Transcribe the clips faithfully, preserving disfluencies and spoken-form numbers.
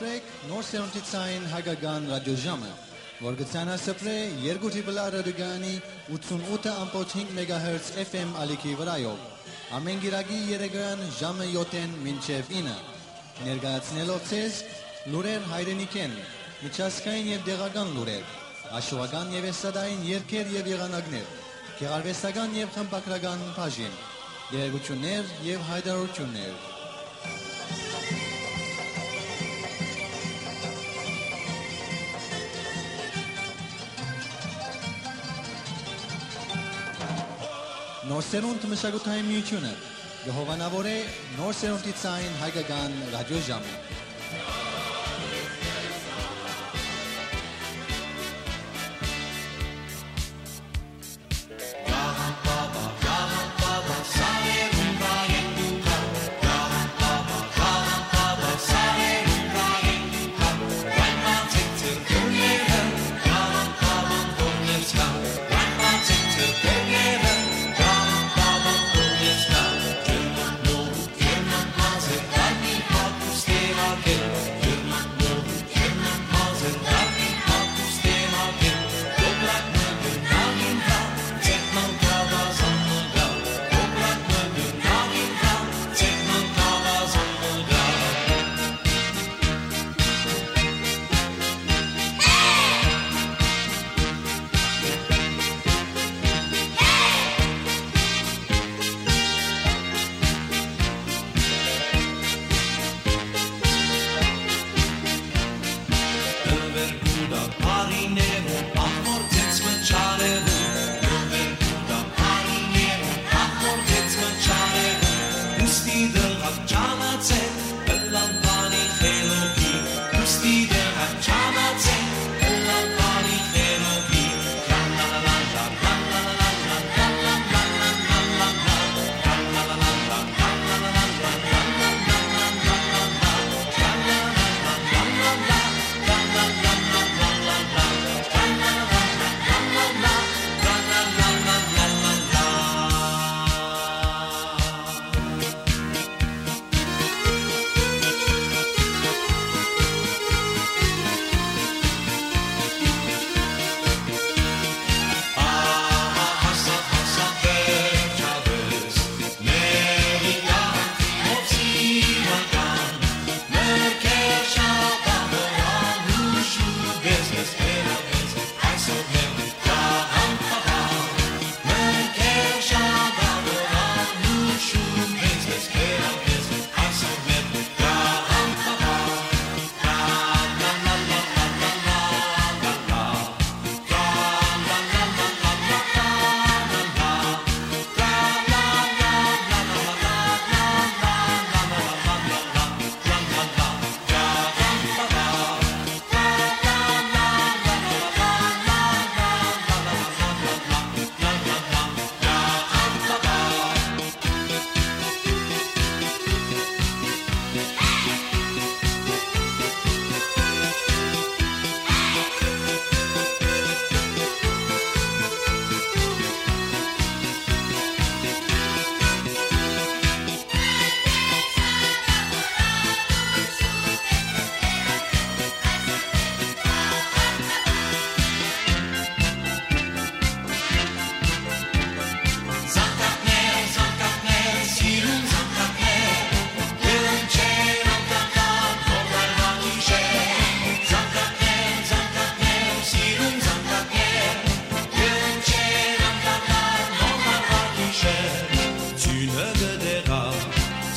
Նոր սերունդի ցային հայկական ռադիոժամը, որ կը ցանասպրէ երկու Triple R ռադիոկայանի ութսունութ ըմբոց հինգ մեգահերց F M ալիքի վրայով, ամէն կիրակի երեկոյեան ժամը յոթ մինչեւ ինը, ներկայացնելով ձեզ լուրեր հայրենիքէն, միջազգային եւ տեղական լուրեր, հաշուական եւ էստրադային երգեր եւ եղանակներ, գեղարուեստական եւ խմբագրական բաժին, տեղեկութիւններ եւ յայտարարութիւններ։ Նոր սերունդ մշակութային միութիւնը կը հովանաւորէ նոր սերունդի ցային հայկական ռադիոժամը։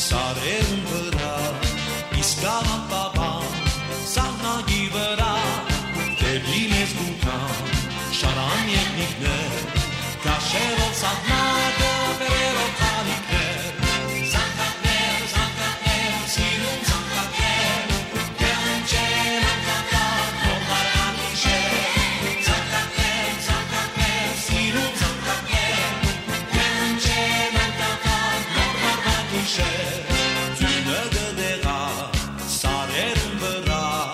Սարերուն վրայ, իսկ աղան պապան, սահնակի վրայ, դեպի մեզ կու գան, շարան եղնիկներ, կաշերով սահնակը, բերերով խալիկներ, զանգակներ, զանգակներ, սիրուն զանգակներ, կհնչեն անկախ, նոր գիշեր, զանգակներ, զանգակներ, սիրուն զանգակներ, կհնչեն անկախ, նոր գիշեր, ձյունը կը դեղայ սարերուն վրայ,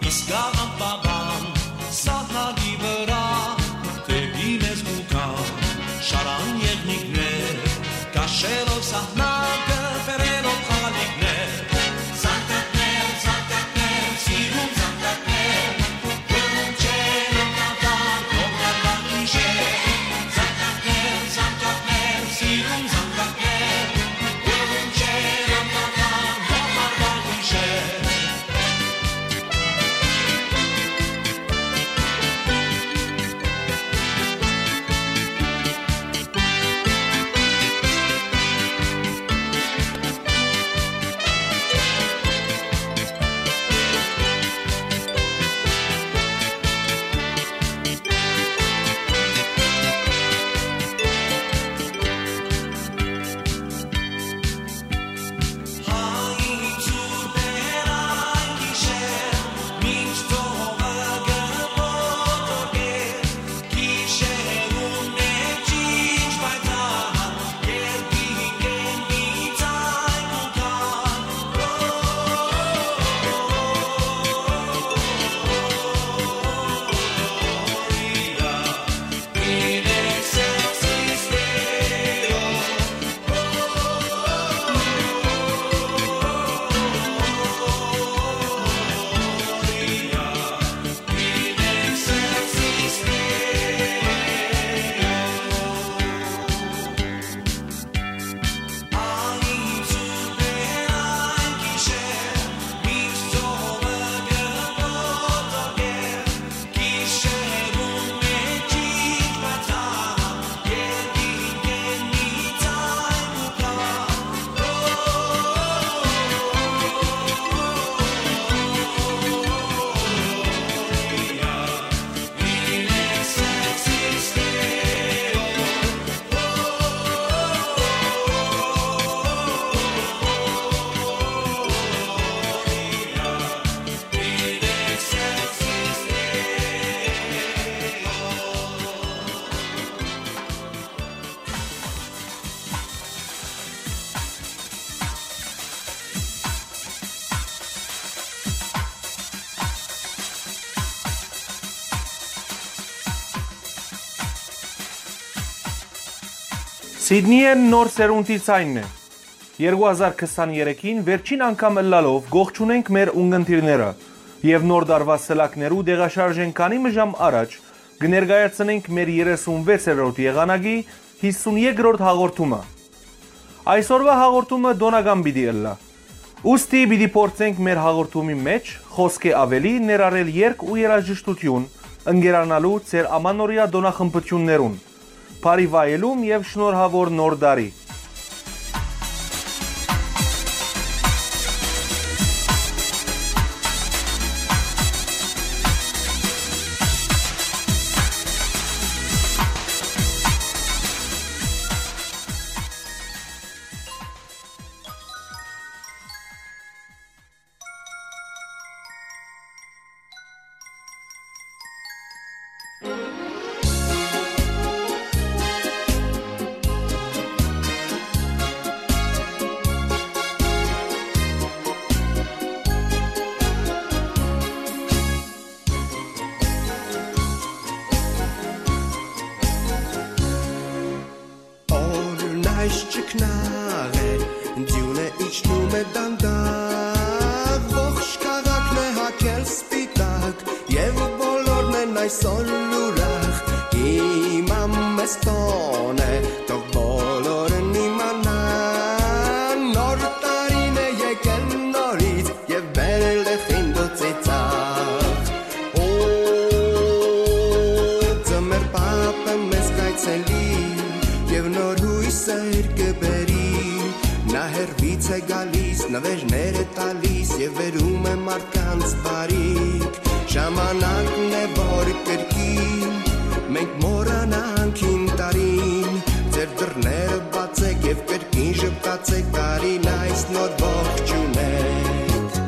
իսկ աղան պապան սահնակի վրայ, դեպի մեզ կու գան, շարան եղնիկներ, կաշերով սահնակը, բերերով խալիկներ, զանգակներ, զանգակներ, Սիդնիէն նոր սերունդի ձայնն է։ Երկու հազար քսաներեքին վերջին անգամ ըլլալով կողջունենք մեր ունգընտիրները եւ նոր տարուայ սլաքներու տեղաշարժ են քանի մը ժամ առաջ կը ներկայացնենք մեր երեսունվեցերորդ եղանակի հիսունեքրորդ հաղորդումը։ Այսօրուայ հաղորդումը տօնական պիտի ըլլայ։ Ուստի պիտի փորձենք մեր հաղորդումի մէջ խօսքէ աւելի ներառել երգ ու երաժշտութիւն, ընկերանալու ձեր ամանորեայ տօնախմբութիւններուն, բարի վայելում եւ շնորհաւոր Նոր տարի։ Օրն այս չքնաղ է, ձիւնը իջնում է դանդաղ, ողջ քաղաքն է հագել սպիտակ, եւ բոլորն են այսօր ուրախ։ Հիմա մեզ տօն է, թող բոլորն իմանան, նոր տարին է եկել նորից, եւ բերել է խինդ ու ծիծաղ։ Օ, ձմեռ պապը մեզ կայցելի, եւ նոր յոյսեր կը բերի։ Նա հեռվից է գալիս, նվերներ է տալիս, եւ բերում է մարդկանց բարիք։ Ժամանակն է, որ կրկին մենք մոռանանք հին տարին։ Ձեր դռները բացեք եւ կրկին ժպտացեք, տարին այս նոր ողջունեք։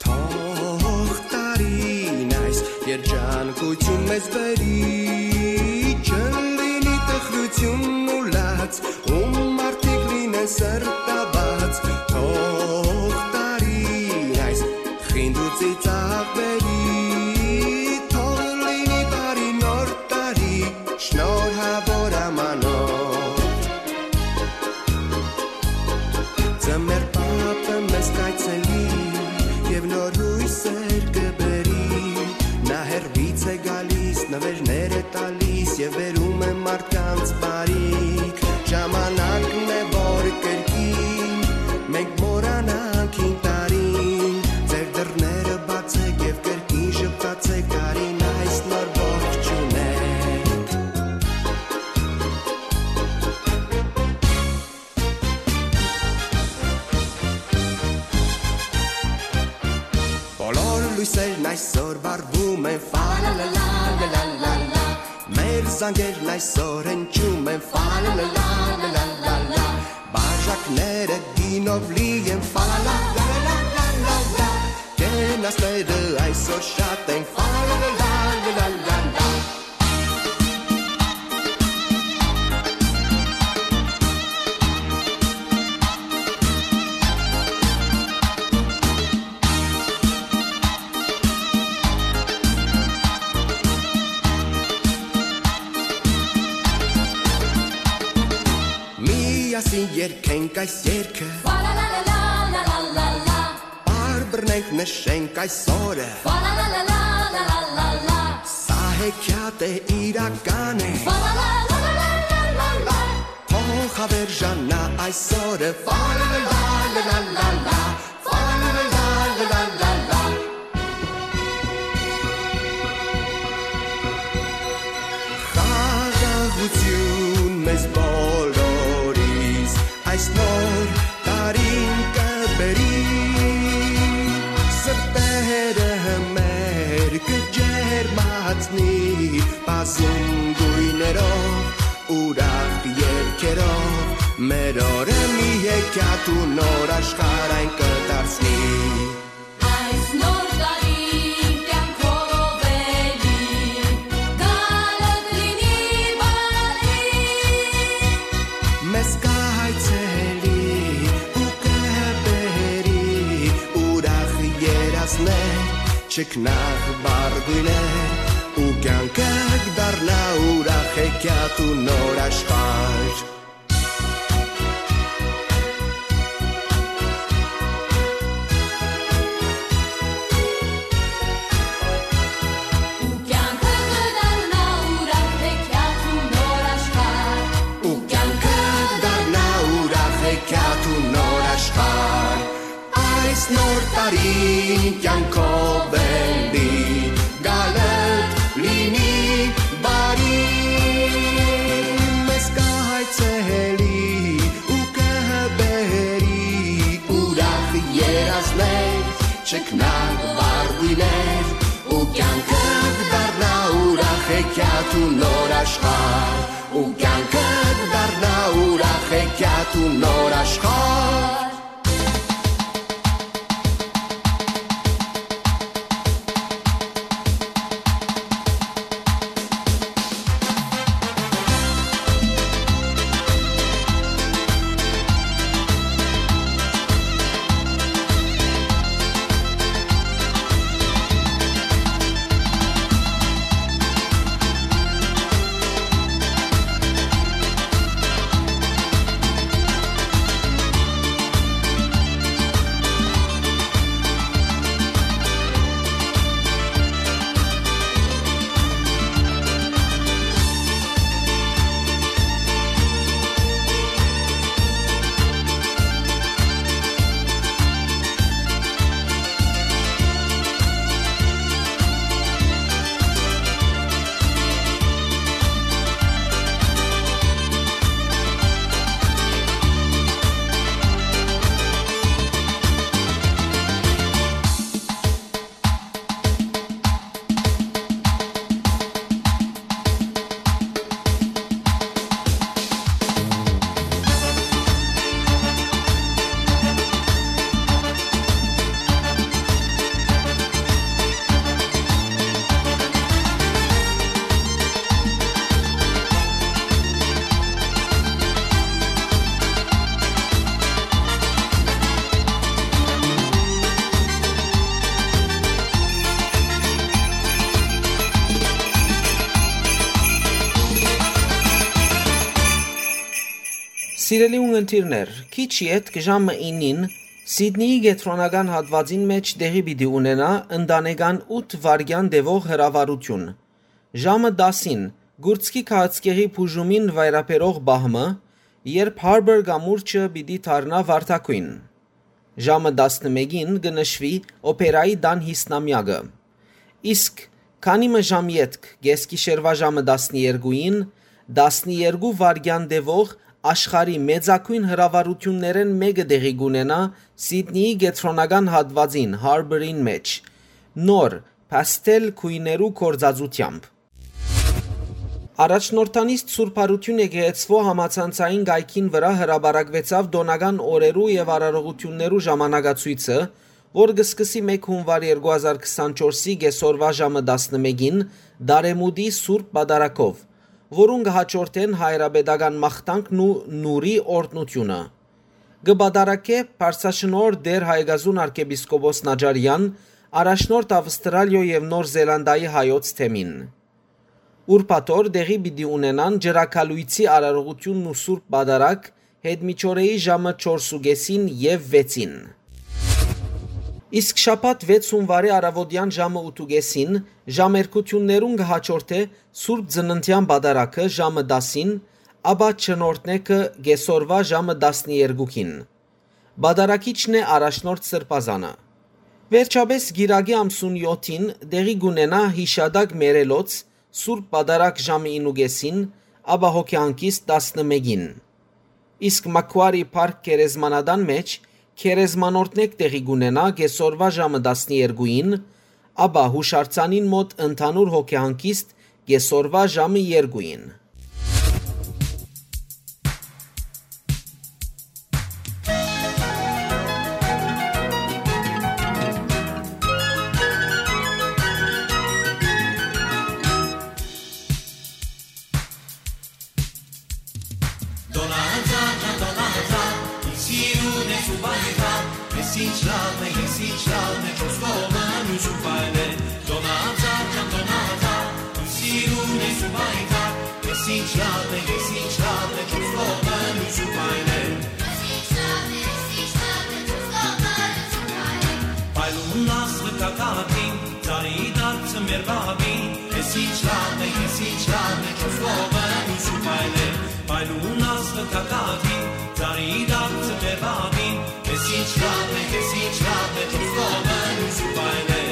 Թող տարին այս երջանկութիւն մեզ բերի, չլինի տխրութիւն ու լաց, ու մարդիկ լինեն սրտաբաց։ Թող տարին այս խինդ ու ծիծաղ բերի, թող լինի բարի նոր տարի, շնորհաւոր ամանոր։ Ձմեռ պապը մեզ կայցելի, եւ նոր յոյսեր կը բերի։ Նա հեռվից է գալիս, նվերներ է տալիս, եւ բերում է մարդկանց բարիք։ Ժամանակն է, որ կրկին մենք մոռանանք հին տարին։ Ձեր դռները բացեք եւ կրկին ժպտացեք, տարին այս նոր ողջունեք։ Բոլոր լոյսերն այսօր վառվում են, ֆալալալա, լալալալա։ Մեր զանգերն այսօր հնչում են, ֆալալալա, լալալալա։ Բաժակները գինով լի են, ֆալալա, լալալալա։ Կենացները այսօր շատ են, ֆալալալա, լալալալա։ Միասին երգենք այս երգը։ Պարբռնենք, նշենք այս օրը։ Սա հեքիաթ է, իրական է։ Թող հավերժանա այս օրը։ Խաղաղութիւն մեզ բոլորիս այս նոր տարին կը բերի, սրտերը մեր կը ջերմացնի, բազում գոյներով, ուրախ երգերով, մեր օրը մի հեքիաթ ու նոր աշխարհ այն կը դարձնի։ Այս նոր տարին կյանքով էլի, գալդ լինի Չքնաղ վառ գոյներ ու կյանքը կդառնայ ուրախ հեքիաթ ու նոր աշխարհ։ Ու կյանքը կդառնայ ուրախ հեքիաթ ու նոր աշխարհ։ Ու կյանքը կդառնայ ուրախ հեքիաթ ու նոր աշխարհ։ Այս նոր տարին կյանքով էլի գալդ լինի բարի, մեզ կհայցելի ու կհբերի ուրախ երազներ, չքնաղ վառ գոյներ, ու կյանքը կդառնայ ուրախ հեքիաթ ու նոր աշխարհ, ու կյանքը կդառնայ ուրախ հեքիաթ ու նոր աշխարհ։ Սիրելի ունգընտիրներ, քիչ ետք ժամը իննին Սիդնիի կեդրոնական հատուածին մէջ տեղի պիտի ունենայ ընտանեկան ութ վայրկեան տեւող հրավառութիւն։ Ժամը տասին կուրծքի քաղցկեղի բուժումին վայրաբերող պահ մը, երբ Harbour կամուրջը պիտի դառնայ վարդագոյն։ Ժամը տասնմէկին կը նշուի օփերայի տան յիսնամեակը։ Իսկ քանի մը ժամ ետք, կէսգիշերուայ ժամը տասներկուին, տասներկու վայրկեան տեւող աշխարհի մեծագոյն հրավառութիւններէն մէկը տեղի կունենայ Սիդնիի կեդրոնական հատուածին Harbour-ին մէջ, նոր, փաստել գոյներու գործածութեամբ։ Առաջնորդանիստ Սուրբ Յարութիւն եկեղեցւոյ համացանցային կայքին վրայ հրապարակուեցաւ տօնական օրերու եւ արարողութիւններու ժամանակացոյցը, որ կը սկսի մէկ հունուար երկու հազար քսանչորսի կէսօրուայ ժամը տասնմէկին Տարեմուտի Սուրբ Պատարագով, որուն կը հաջորդեն հայրապետական մաղթանքն ու նուրի օրհնութիւնը։ Կը պատարագէ Պարսաշնորհ Տէր Հայկազուն արքեպիսկոպոս Նաճարեան, առաջնորդ Ավստրալիոյ եւ Նոր Զելանդայի հայոց թեմին։ Ուրբաթօր տեղի պիտի ունենան Ջրագալոյցի արարողութիւնն ու Սուրբ Պատարագ Յետմիջօրեի ժամը չորս ու կէսին եւ վեցին։ Իսկ շաբաթ վեց հունուարի առաւօտեան ժամը ութ ու կէսին ժամերգութիւններուն կը հաջորդէ Սուրբ Ծննդեան Պատարագը ժամը տասին, ապա Չնորդնեքը կէսօրուայ ժամը տասներկուին։ Պատարագիչն է առաջնորդ Սրբազանը։ Վերջապէս կիրակի ամսուն յոթին տեղի կունենայ յիշատակ մեռելոց Սուրբ Պատարագ ժամը ինն ու կէսին, ապա հոգեհանգիստ տասնմէկին։ Իսկ Մաքուարի Փարք գերեզմանատան մէջ գերեզմանորդնեկ տեղի կունենայ կէսօրուայ ժամը տասներկուին, ապա յուշարձանին մօտ ընդհանուր հոգեհանգիստ կէսօրուայ ժամը երկուին։ Դոնահանձան, դոնահանձան, ինչ սիրուն ես ու բարի խաղ, ես ինչ լավն է, ես ինչ լավն է, չոս կողմը մյուս ու փայլե։ Լաւ է, ես ինչ լաւ է, չուս կողմը լույս ու պայլ է։ Ես ինչ լաւ է, ես ինչ լաւ է, չուս կողմը լույս ու պայլ է։ Պայլուն աստղը կա կաթին, ծառի դարձը մեր բաբին։ Ես ինչ լաւ է, ես ինչ լաւ է, չուս կողմը լույս ու պայլ է։ Պայլուն աստղը կա կաթին, ծառի դարձը մեր բաբին։ Ես ինչ լաւ է, ես ինչ լաւ է, չուս կողմը լույս ու պայլ է։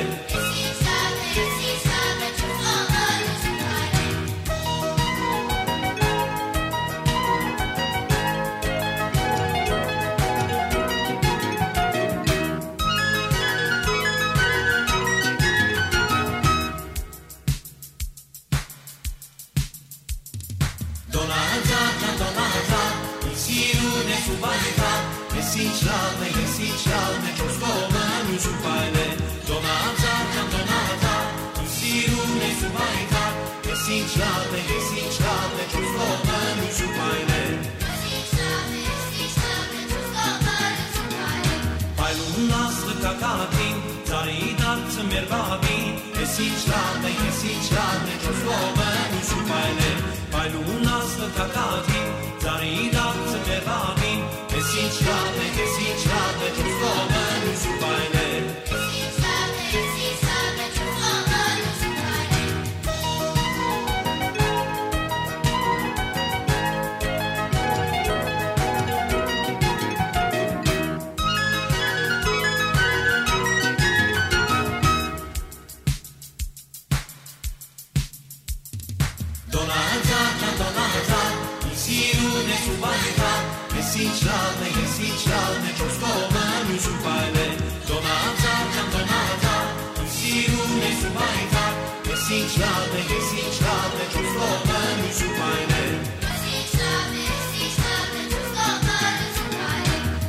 Դոնահաձար ջան, Դոնահաձար, իմ սիրուն ես ու բարեկամ, ես ինչ լաւ է, ես ինչ լաւ է, չորս կողմը լույս ու պայլ է։ Դոնահաձար ջան, Դոնահաձար, իմ սիրուն ես ու բարեկամ, ես ինչ լաւ է, ես ինչ լաւ է, չորս կողմը լույս ու պայլ է։ Պայլուն աստղը կա կաթին, ծառի դարձը մեր բաբին, ես ինչ լաւ է, ես ինչ լաւ է, չորս կողմը լույս ու պայլ է։ Պայլուն աստղը կա կաթին, ծառի դարձը մեր բաբին, ես ինչ լաւ է, ես ինչ լաւ է, չորս կողմը լույս ու պայլ է։ Դոնահաձար ջան, Դոնահաձար, իմ սիրուն ես ու բարեկամ, ես ինչ լաւ է, ես ինչ լաւ է, չորս կողմը լույս ու պայլ է։ Դոնահաձար ջան, Դոնահաձար, իմ սիրուն ես ու բարեկամ, ես ինչ լաւ է, ես ինչ լաv է, չուս կողմը լոյս ու պայլեր։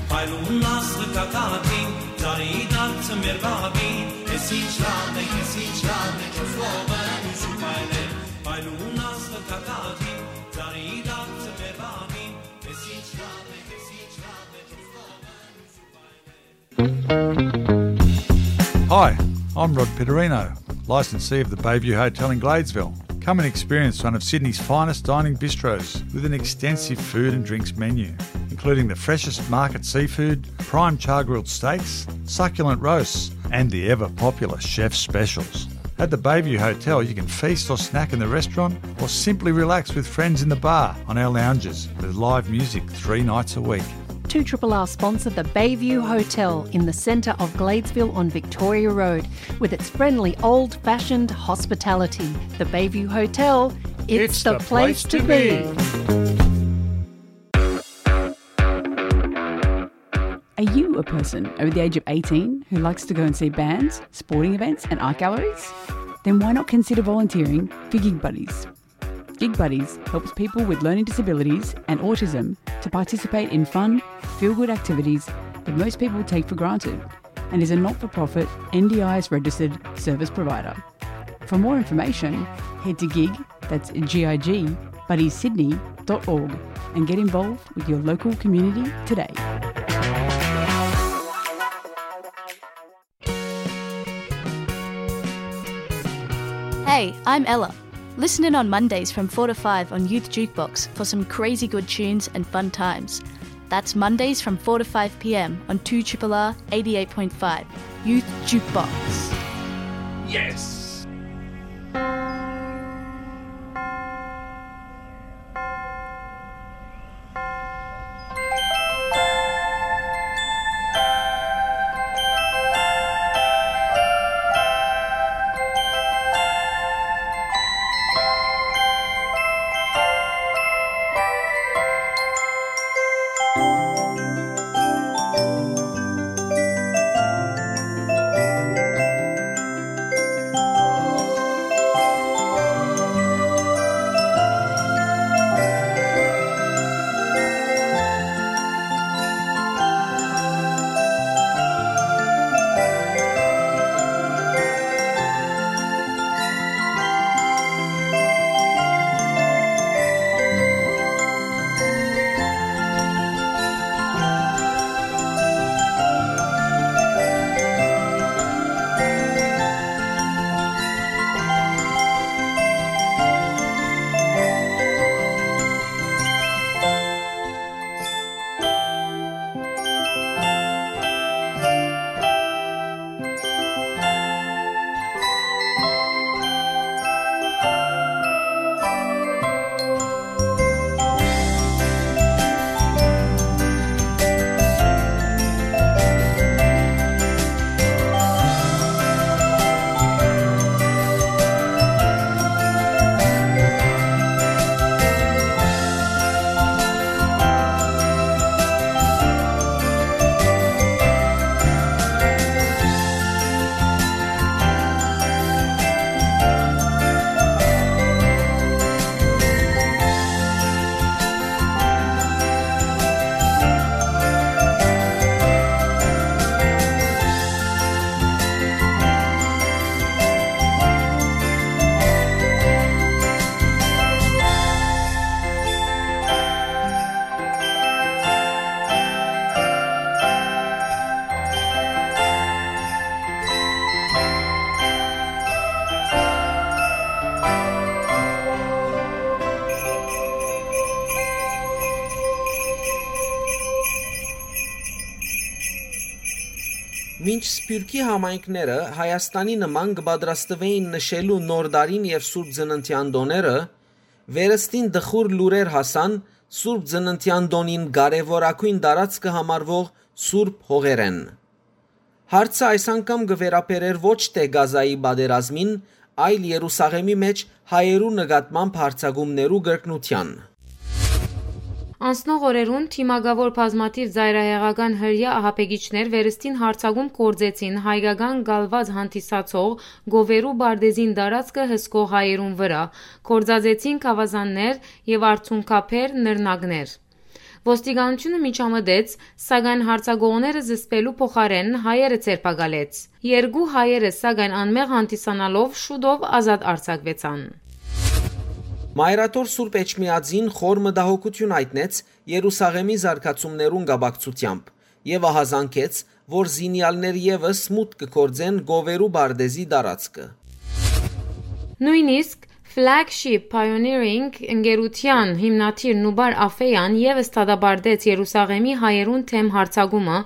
Փայլուն աստղը կա կաթին, ծառի դարձը մեր բաբին, ես ինչ լաv է, ես ինչ լաv է, չուս կողմը լոյս ու պայլեր։ Փայլուն աստղը կա կաթին, ծառի դարձը մեր բաբին, ես ինչ լաv է, ես ինչ լաv է, չուս կողմը լոյս ու պայլեր։ Hi, I'm Rod Pitterino, licensee of the Bayview Hotel in Gladesville. Come and experience one of Sydney's finest dining bistros with an extensive food and drinks menu, including the freshest market seafood, prime char-grilled steaks, succulent roasts, and the ever-popular chef specials. At the Bayview Hotel, you can feast or snack in the restaurant or simply relax with friends in the bar on our lounges with live music three nights a week. Two triple R sponsor the Bayview Hotel in the centre of Gladesville on Victoria Road with its friendly old-fashioned hospitality. The Bayview Hotel, it's the place to be. Are you a person over the age of eighteen who likes to go and see bands, sporting events, and art galleries? Then why not consider volunteering for Gig Buddies? Gig Buddies helps people with learning disabilities and autism to participate in fun, feel-good activities that most people take for granted, and is a not-for-profit N D I S registered service provider. For more information, head to gig, that's G I G, buddies sydney dot org and get involved with your local community today. Hey, I'm Ella. Listen in on Mondays from four to five on Youth Jukebox for some crazy good tunes and fun times. That's Mondays from four to five p.m. on two triple R eighty-eight point five Youth Jukebox. Yes! Մինչ սփիւռքի համայնքները Հայաստանի նման կը պատրաստուէին նշելու Նոր տարին եւ Սուրբ Ծննդեան տօները, վերստին տխուր լուրեր հասան Սուրբ Ծննդեան տօնին կարեւորագոյն տարածքը համարուող սուրբ հողերէն։ Հարցը այս անգամ կը վերաբերէր ոչ թէ Կազայի պատերազմին, այլ Երուսաղեմի մէջ հայերու նկատմամբ յարձակումներու կրկնութեան։ Անցնող օրերուն թիմակաւոր բազմաթիւ ծայրահեղական հրեայ ահաբեկիչներ վերստին յարձակում գործեցին հայկական կալուած հանդիսացող Գովերու պարտէզին տարածքը հսկող հայերուն վրայ, գործածեցին գաւազաններ եւ արցունքաբեր նռնակներ։ Ոստիկանութիւնը միջամտեց, սակայն յարձակողները զսպելու փոխարէն հայերը ձերբակալեց։ Երկու հայերը, սակայն անմեղ հանդիսանալով, շուտով ազատ արձակուեցան։ Մայրաթոր Սուրբ Էջմիածին խոր մտահոգութիւն յայտնեց Երուսաղեմի զարգացումներուն կապակցութեամբ եւ ահազանգեց, որ զինեալներ եւս մուտք կը գործեն Գովերու պարտէզի տարածքը։ Նոյնիսկ Flagship Pioneering ընկերութեան հիմնադիր Նուբար Աֆեան եւս դատապարտեց Երուսաղեմի հայերուն դէմ յարձակումը,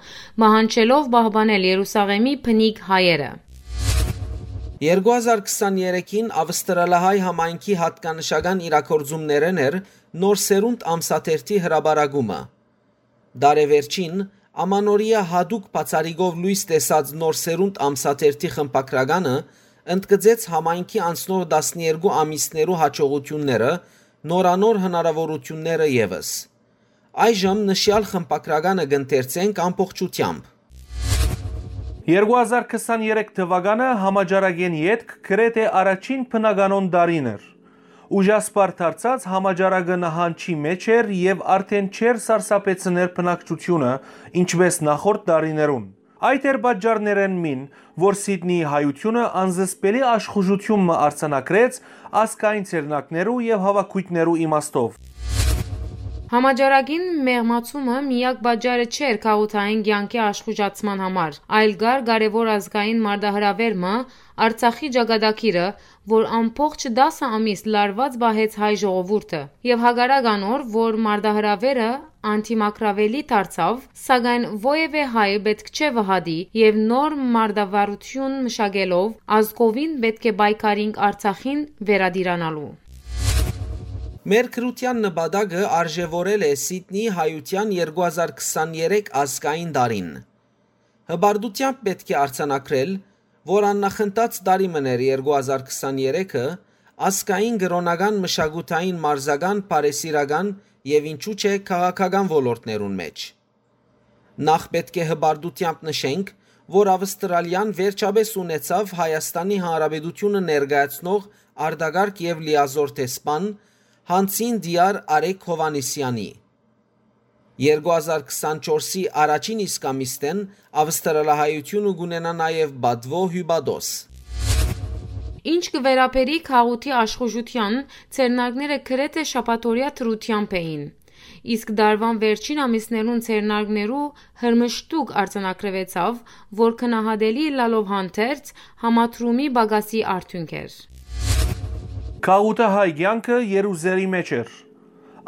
պահանջելով պահպանել Երուսաղեմի բնիկ հայերը։ Երկու հազար քսաներեքին Ավստրալահայ համայնքի յատկանշական իրագործումներէն էր Նոր Սերունդ ամսաթերթի հրապարակումը։ Տարեվերջին, Ամանորեայ յատուկ բացառիկով լոյս տեսած Նոր Սերունդ ամսաթերթի խմբագրականը ընդգծեց համայնքի անցնող տասներկու ամիսներու յաջողութիւնները, նորանոր հնարաւորութիւնները եւս։ Այժմ նշեալ խմբագրականը կ'ընթերցենք ամբողջութեամբ։ Երկու հազար քսաներեք թուականը համաճարակէն ետք գրեթէ առաջին բնականոն տարին էր։ Ուժասպառ դարձած համաճարակը նահանջի մէջ էր եւ արդէն չէր սարսափեցներ բնակչութիւնը, ինչպէս նախորդ տարիներուն։ Այդ էր պատճառներէն մին, որ Սիդնիի հայութիւնը անզսպելի աշխուժութիւն մը արձանագրեց ազգային ձեռնարկներու եւ հաւաքոյթներու իմաստով։ Համաճարակին մեղմացումը միակ պատճառը չէր քաղաքային կեանքի աշխուժացման համար, այլ կար կարեւոր ազգային մարտահրաւեր մը, Արցախի ճակատագիրը, որ ամբողջ տասը ամիս լարուած պահեց հայ ժողովուրդը, եւ հակառակ անոր, որ մարտահրաւերը անդիմագրաւելի դարձաւ, սակայն որեւէ հայ պէտք չէ վհատի եւ նոր մարտավարութիւն մշակելով ազգովին պէտք է պայքարինք Արցախին վերատիրանալու։ Մեր գրութեան նպատակը արժեւորել է Սիդնի հայութեան երկու հազար քսաներեք ազգային տարին։ Հպարտութեամբ պէտք է արձանագրել, որ աննախընթաց տարի մըն էր երկու հազար քսաներեքը ազգային, կրօնական, մշակութային, մարզական, բարեսիրական եւ ինչու՞ չէ քաղաքական ոլորտներուն մէջ։ Նախ պէտք է հպարտութեամբ նշենք, որ Ավստրալիան վերջապէս ունեցաւ Հայաստանի Հանրապետութիւնը ներկայացնող արտակարգ եւ լիազօր դեսպան Հանցին Տիար Արեգ Հովհաննիսեանի։ Երկու հազար քսանչորսի առաջին իսկ ամիսնէն Ավստրալահայութիւնը կ'ունենայ նաեւ պատուոյ հիւպատոս։ Ինչ կը վերաբերի քաղաքի աշխուժութեան, ձեռնարկները գրեթէ շաբաթօրեայ դրութեամբ էին, իսկ տարուան վերջին ամիսներուն ձեռնարկներու հրմշտուկ արձանագրուեցաւ, որ գնահատելի ըլլալով հանդերձ, համադրումի պակասի արդիւնք էր։ Քաղաքահայ կեանքը Երուսաղեմի մէջ էր։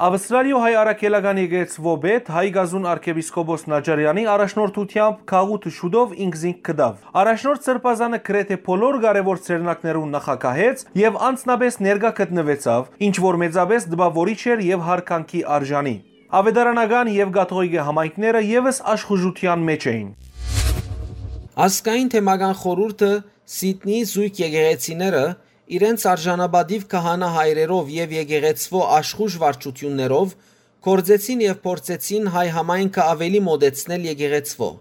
Ավստրալիոյ հայ առաքելական եկեղեցւոյ պետ, հայ կազուն արքեպիսկոպոս Նաճարեանի առաջնորդութեամբ քաղաքը շուտով ինքզինք գտաւ։ Առաջնորդ Սրբազանը գրեթէ բոլոր կարեւոր ձեռնարկներուն նախագահեց եւ անձնապէս ներկայ գտնուեցաւ, ինչ որ մեծապէս տպաւորիչ էր եւ յարգանքի արժանի։ Աւետարանական եւ կաթողիկէ համայնքները եւս աշխուժութեան մէջ էին։ Ազգային թեմական խորհուրդը, Սիդնիի զոյգ եկեղեցիները իրենց արժանապատիւ քահանայ հայրերով եւ եկեղեցւոյ աշխուժ վարչութիւններով գործեցին եւ փորձեցին հայ համայնքը աւելի մօտեցնել եկեղեցւոյ։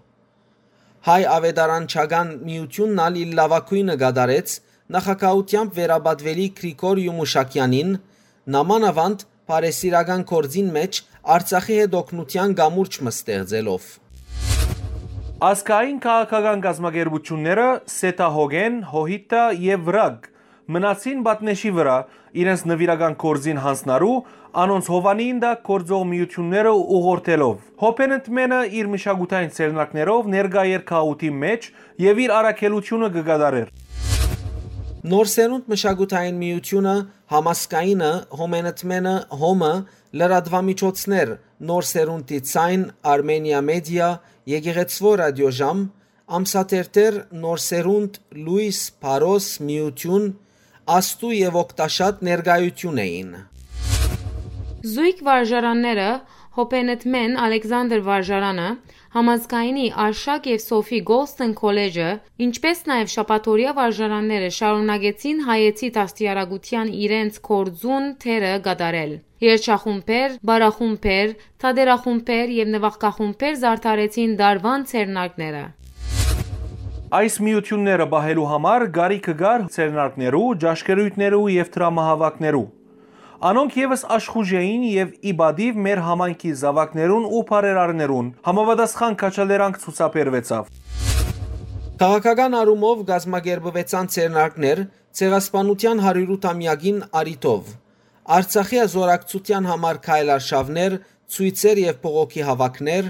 Հայ աւետարանչական միութիւնն ալ իր լաւագոյնը կատարեց նախագահութեամբ վերապատուելի Գրիգոր Յումուշակեանին, նամանավանդ բարեսիրական գործին մէջ Արցախի հետ օգնութեան կամուրջ մը ստեղծելով։ Ազգային քաղաքական կազմակերպութիւնները Սեթա Հոգեն, Հոհիտա եւ Վրագ մնացին պատնէշի վրայ, իրենց նուիրական գործին յանձնառու, անոնց հովանին տակ գործող միութիւնները ուղղորդելով։ Հոփեն ընդմէնը իր մշակութային ձեռնարկներով ներկայ էր քաղաքին մէջ եւ իր առաքելութիւնը կը կատարէր։ Նոր Սերունդ մշակութային միութիւնը, համազգայինը, Հոմեն ընդմէնը, Հոմը, լրատուամիջոցներ, Նոր Սերունդի Ձայն, Արմենիա Մեդիա, Եկեղեցւոյ Ռատիոժամ, Ամսաթերթեր, Նոր Սերունդ, Լոյս, Փարոս, Միութիւն, Աստու եւ Օգտաշատ ներկայութիւն էին։ Զոյգ վարժարանները, Հոփենեթմեն Ալեքսանդր վարժարանը, Համազգայինի Արշակ եւ Սոֆի Գոլսթեն քոլեջը, ինչպէս նաեւ շաբաթօրեայ վարժարանները շարունակեցին հայեցի դաստիարակութեան իրենց գործուն դերը կատարել։ Երգչախումբեր, պարախումբեր, թատերախումբեր եւ նուագախումբեր զարդարեցին տարուան ձեռնարկները։ Այս միութիւնները պահելու համար կարիքը կար ձեռնարկներու, ճաշկերոյթներու եւ դրամահաւաքներու։ Անոնք եւս աշխուժ էին եւ ի պատիւ մեր համայնքի զաւակներուն ու բարերարներուն համապատասխան քաջալերանք ցուցաբերուեցաւ։ Քաղաքական առումով կազմակերպուեցան ձեռնարկներ Ցեղասպանութեան հարիւրութամեակին առիթով, Արցախի ազորակցութեան համար քայլարշաւներ, ցոյցեր եւ բողոքի հաւաքներ,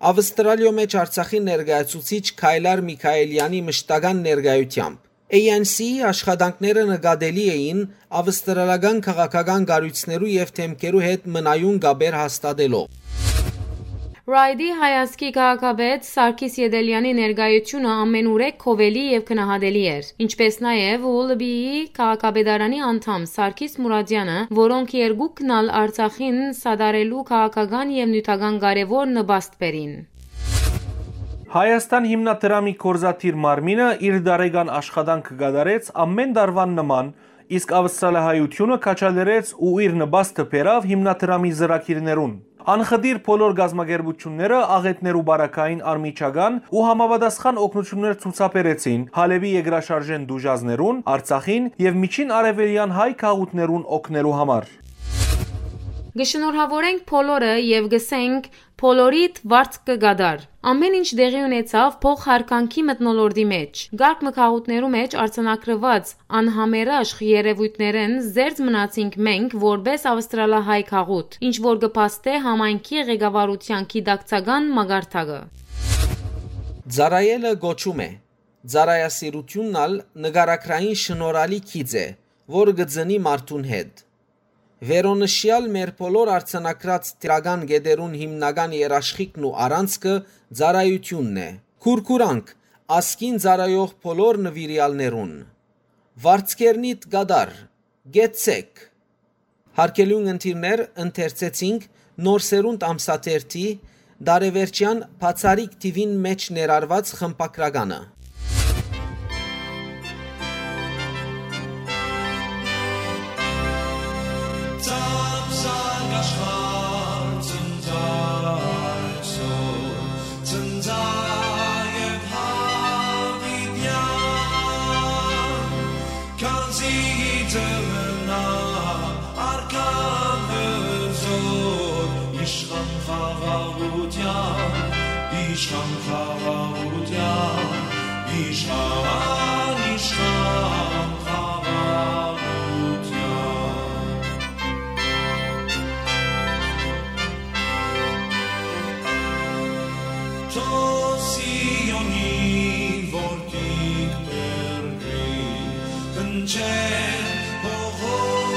Ավստրալիոյ մէջ Արցախի ներկայացուցիչ Քայլար Միքայելեանի մշտական ներկայութեամբ։ A N C-ի աշխատանքները նկատելի էին ավստրալական քաղաքական կառոյցներու եւ դէմքերու հետ մնայուն կապեր հաստատելով։ Ռայդի հայազգի քաղաքապետ Սարգիս Ետելեանի ներկայութիւնը ամենուրեք գովելի եւ գնահատելի էր, ինչպէս նաեւ Ուլբիի քաղաքապետարանի անդամ Սարգիս Մուրադյանը, որոնք երկուքն ալ Արցախին սատարելու քաղաքական եւ նիւթական կարեւոր նպաստ բերին։ Հայաստան հիմնադրամի գործադիր մարմինը իր տարեկան աշխատանքը կատարեց ամէն տարուան նման, իսկ Ավստրալահայութիւնը քաջալերեց ու իր նպաստը բերաւ հիմնադրամի ծրագիրներուն։ Անխտիր բոլոր կազմակերպութիւնները աղէտներու պարագային անմիջական ու համապատասխան օգնութիւններ ցուցաբերեցին Հալէպի երկրաշարժէն տուժածներուն, Արցախին եւ Միջին Արեւելեան հայ գաղութներուն օգնելու համար։ Կը շնորհաւորենք բոլորը եւ կ'ըսենք. «Բոլորիդ վարձ կը կատար»։ Ամէն ինչ տեղի ունեցաւ փոխհարգանքի մթնոլորտի մէջ։ Կարգ մը գաղութներու մէջ արձանագրուած անհամերաշխ երեւոյթներէն զերծ մնացինք մենք, որպէս ավստրալահայ գաղութ, ինչ որ կը փաստէ համայնքի ղեկավարութեան գիտակցական մակարդակը։ Ծառայելը կոչում է։ Ծառայասիրութիւնն ալ նկարագրային շնորհալի գիծ է, որ կը ծնի մարդուն հետ։ Վերոնշեալ մեր բոլոր արձանագրած դրական կետերուն հիմնական երաշխիքն ու առանցքը ծառայութիւնն է։ Քուրքուրանք ազգին ծառայող բոլոր նուիրեալներուն։ Վարձքերնիդ կատար, կեցցեք։ Հարգելի ունգընտիրներ, ընթերցեցինք Նոր Սերունդ ամսաթերթի տարեվերջեան բացառիկ թիւին մէջ ներառուած խմբագրականը։ Ծափսակ աշխարհ, ցնծա այսօր, ցնծա եւ յաւիտեան, քանզի ծննայ արքան հզոր, իշխան խաղաղութեան, իշխան խաղաղութեան, իշխան, իշխան խաղաղութեան։ Թող Սիոնի որդիք բերկրի, հնչեն հողոպելյան,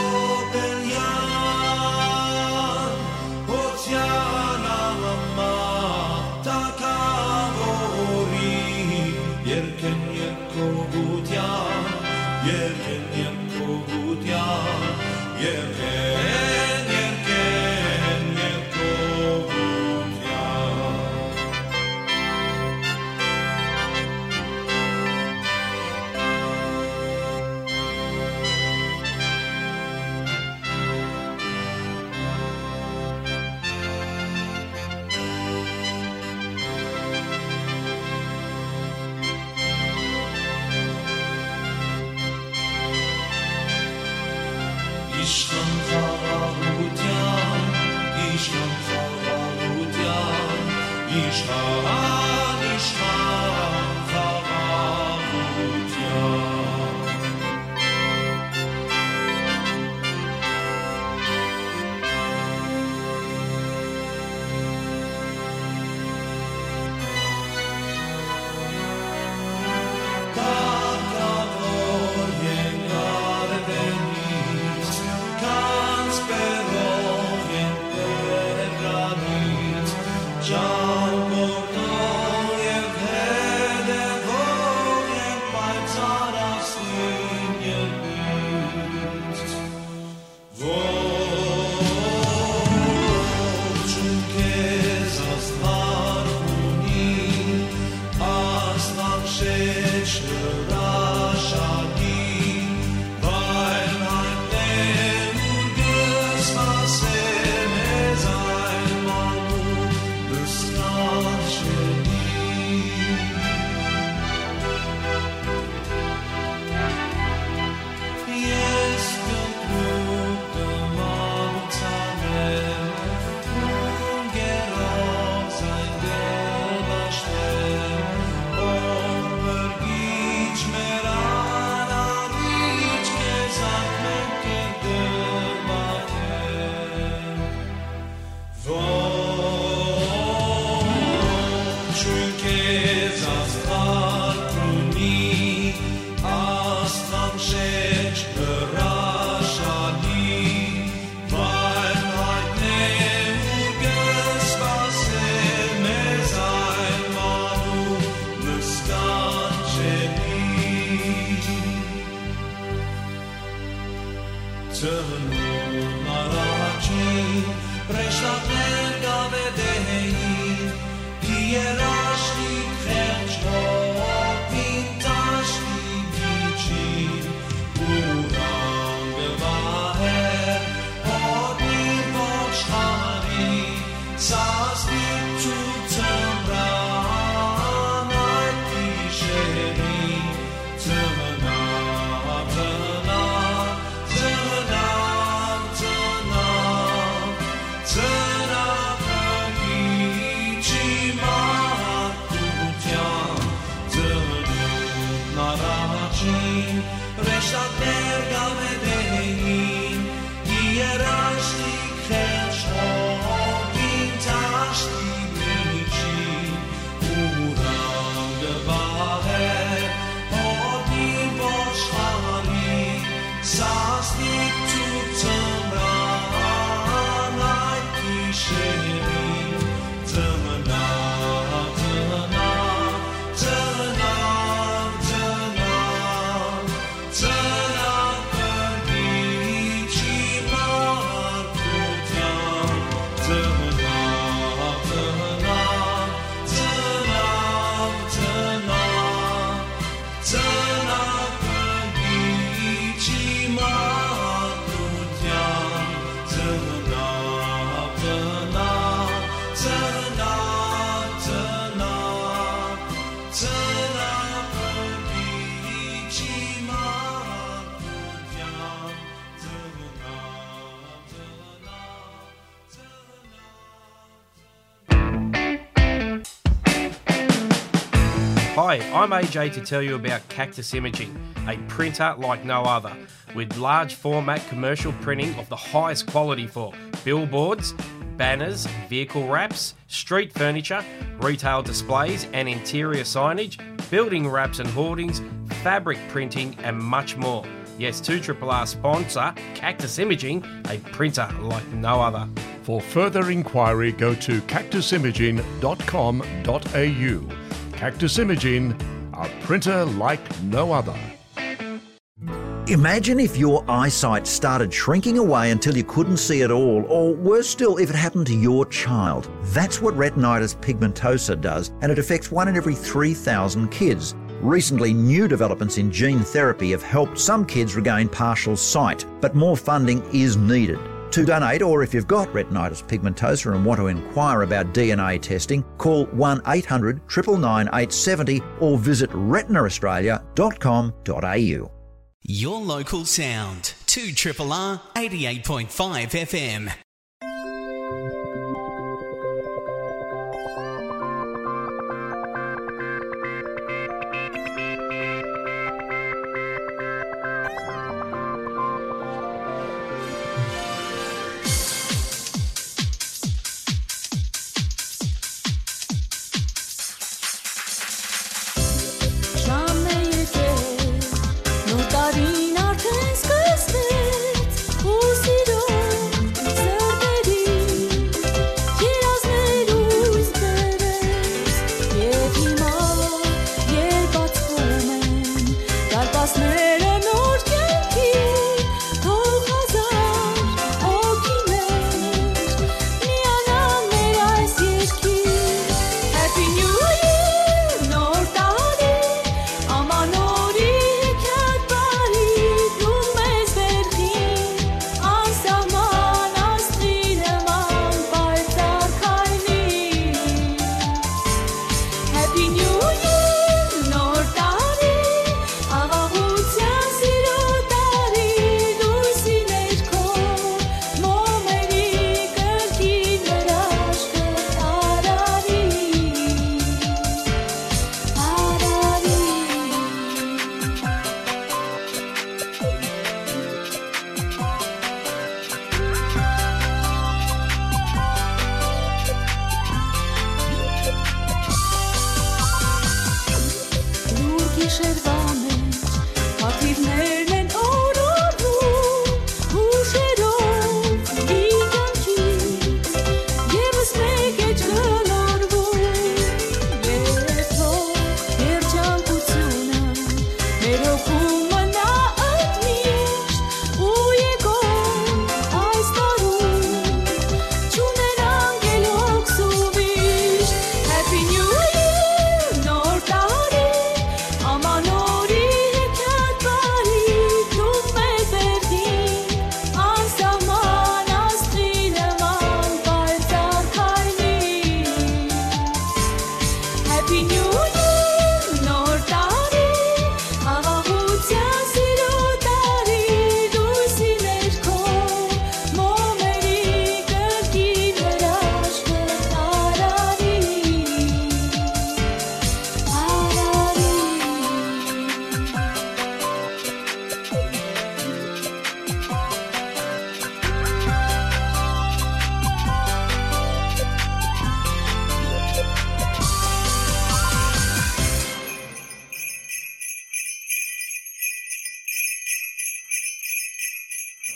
հոթեան ամա թագաւորի, երկեն երկողութեան, երկեն երկողութեան, երկեն, երկեն երկողութեան։ Իշխան խաղաղութեան, իշխան խաղաղութեան, իշխան, իշխան խաղաղութեան։ Ծնունդ առաջին հրեշտակներ կ'աւետեին, երաշտիկ խեղճ հովին դաշտի միջին, ուրան կը վահէր հոտնի ոչխարի, սաստիկ ցուրտ ձմրան այդ գիշերին, Ծնաւ, ծնաւ, ծնաւ, ծնաւ, ծնաւ Փրկիչ իմ մարդկութեան, ծնունդն առաջին հրեշտակներ կ'աւետեին, երաշտիկ խեղճ հովին դաշտի միջին, ուրան կը վահէր հովին ոչխարի, սաստիկ ցուրտ ձմրան այդ գիշերին, ծնաւ, ծնաւ, ծնաւ, ծնաւ, Ծնաւ Փրկիչ իմ մարդկութեան, ծնաւ, ծնաւ, ծնաւ, ծնաւ, ծնաւ Փրկիչ իմ մարդկութեան, ծնաւ, ծնաւ, ծնաւ, ծնաւ, Ծնաւ Փրկիչ իմ մարդկութեան, ծնաւ, ծնաւ, ծնաւ։ Hi, I'm A J to tell you about Cactus Imaging, a printer like no other, with large format commercial printing of the highest quality for billboards, banners, vehicle wraps, street furniture, retail displays and interior signage, building wraps and hoardings, fabric printing, and much more. Yes, two R R R sponsor Cactus Imaging, a printer like no other. For further inquiry, go to cactus imaging dot com dot a u. Cactus Imaging, a printer like no other. Imagine if your eyesight started shrinking away until you couldn't see at all, or worse still, if it happened to your child. That's what retinitis pigmentosa does, and it affects one in every three thousand kids. Recently, new developments in gene therapy have helped some kids regain partial sight, but more funding is needed. To donate, or if you've got retinitis pigmentosa and want to inquire about D N A testing, call one eight hundred triple nine eight seventy or visit retina australia dot com dot a u. Your local sound, two R R R eighty-eight point five F M.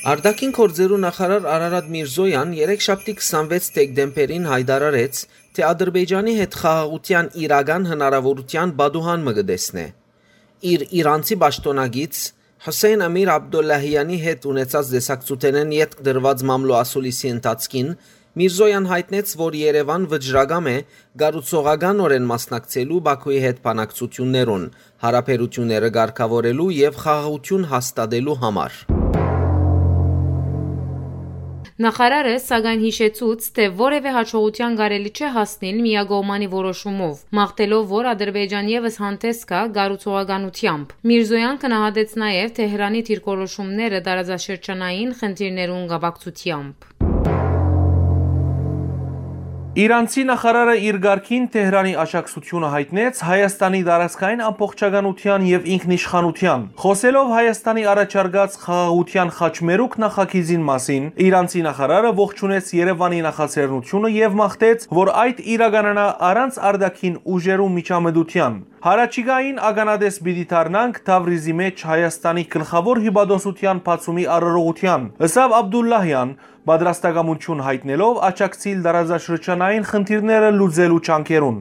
Արտաքին գործերու նախարար Արարատ Միրզոյան երեքշաբթի քսանվեց դեկտեմբերին յայտարարեց, թէ Ադրբեջանի հետ խաղաղութեան իրական հնարաւորութեան պատուհան մը կը տեսնէ։ Իր իրանցի պաշտօնակից Հուսեյն Ամիր Աբդոլլահյանի հետ ունեցած տեսակցութենէն ետք տրուած մամլոյ ասուլիսի ընթացքին Միրզոյան յայտնեց, որ Երեւան վճռակամ է կառուցողականօրէն մասնակցելու Բաքուի հետ բանակցութիւններուն, յարաբերութիւնները կարգաւորելու եւ խաղաղութիւն հաստատելու համար։ Նախարարը, սակայն, յիշեցուց, թէ որեւէ յաջողութեան կարելի չէ հասնիլ միակողմանի որոշումով, մաղթելով, որ Ադրբեջան եւս հանդէս գայ կառուցողականութեամբ։ Միրզոյան գնահատեց նաեւ Թեհրանի դիրքորոշումները տարածաշրջանային խնդիրներուն կապակցությամբ։ Իրանցի նախարարը իր կարգին Թեհրանի աջակցությունը յայտնեց Հայաստանի տարածքային ամբողջականութեան եւ ինքնիշխանութեան։ Խօսելով Հայաստանի առաջարկած խաղաղութեան խաչմերուկ նախագիծին մասին, իրանցի նախարարը ողջունեց Երեւանի նախաձեռնությունը եւ մաղթեց, որ այդ իրականանայ առանց արտաքին ուժերու միջամտութեան։ Յառաջիկային ականատես պիտի դառնանք Թավրիզի մէջ Հայաստանի գլխաւոր հիւպատոսութեան բացումի արարողութեան, ըսաւ Աբդուլլահեան, պատրաստակամութիւն յայտնելով աջակցիլ տարածաշրջանային խնդիրները լուծելու ջանքերուն։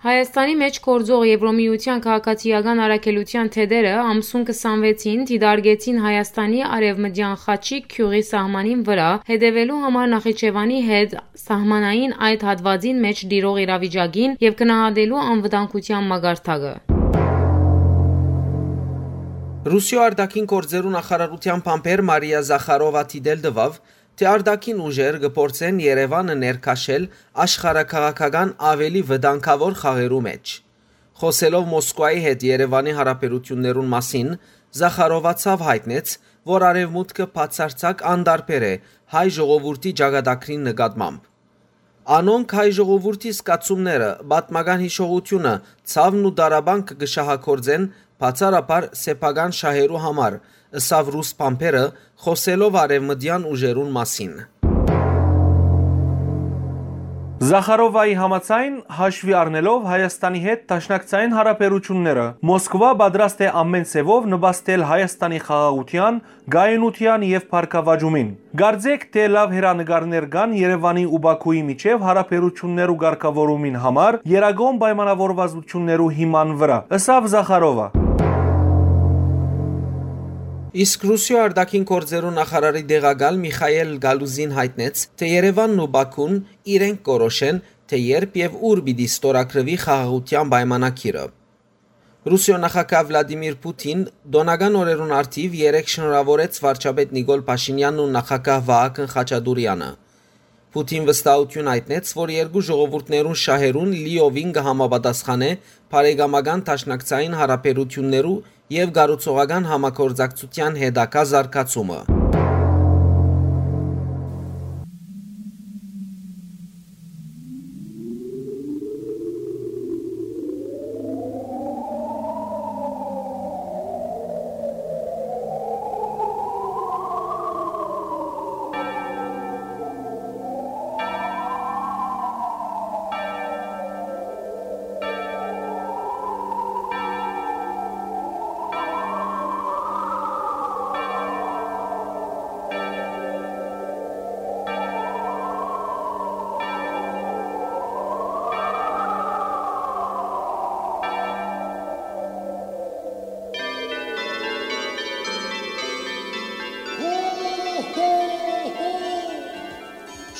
Հայաստանի մէջ գործող Եվրոմիութեան քաղաքացիական առաքելութեան թեթերը ամսուն քսանվեցին դիտարկեցին Հայաստանի արեւմտեան Խաչիկ գիւղի սահմանին վրայ հետեւելու համար Նախիջեւանի հետ սահմանային այդ հատուածին մէջ տիրող իրավիճակին եւ գնահատելու անվտանգութեան մակարդակը։ Ռուսիոյ արտաքին գործերու նախարարութեան բանբեր Մարիա Զախարովա դիտել տուաւ, թէ արտաքին ուժեր կը փորձեն Երեւանը ներքաշել աշխարհաքաղաքական աւելի վտանգաւոր խաղերու մէջ։ Խօսելով Մոսկուայի հետ Երեւանի յարաբերութիւններուն մասին, Զախարովա ցաւ յայտնեց, որ Արեւմուտքը բացարձակ անտարբեր է հայ ժողովուրդի ճակատագրին նկատմամբ։ Անոնք հայ ժողովուրդի զգացումները, պատմական յիշողութիւնը, ցաւն ու տառապանքը կը շահագործեն բացառաբար սեփական շահերու համար, ըսաւ ռուս բանբերը, խօսելով արեւմտեան ուժերուն մասին։ Զախարովայի համաձայն, հաշուի առնելով Հայաստանի հետ դաշնակցային յարաբերութիւնները, Մոսկվա պատրաստ է ամէն ձեւով նպաստել Հայաստանի խաղաղութեան, կայունութեան եւ բարգաւաճումին։ Կարծէք թէ լաւ հեռանկարներ կան Երեւանի ու Բաքուի միջեւ յարաբերութիւններու կարգաւորումին համար երագոն պայմանաւորվածութիւններու հիման վրայ, ըսաւ Զախարովա։ Իսկ Ռուսիոյ արտաքին գործերու նախարարի տեղակալ Միխայել Գալուզին յայտնեց, թէ Երեւանն ու Բաքուն իրենք կորոշեն, թէ երբ եւ ուր պիտի ստորագրուի խաղաղութեան պայմանագիրը։ Ռուսիոյ նախագահ Վլադիմիր Պութին տօնական օրերուն առթիւ երեկ շնորհաւորեց վարչապետ Նիկոլ Փաշինեանն ու նախագահ Վահագն Խաչատուրեանը։ Պութին վստահութիւն յայտնեց, որ երկու ժողովուրդներուն շահերուն լիովին կը համապատասխանէ բարեկամական դաշնակցային յարաբերութիւններու եւ կառուցողական համագործակցութեան հետագայ զարգացումը։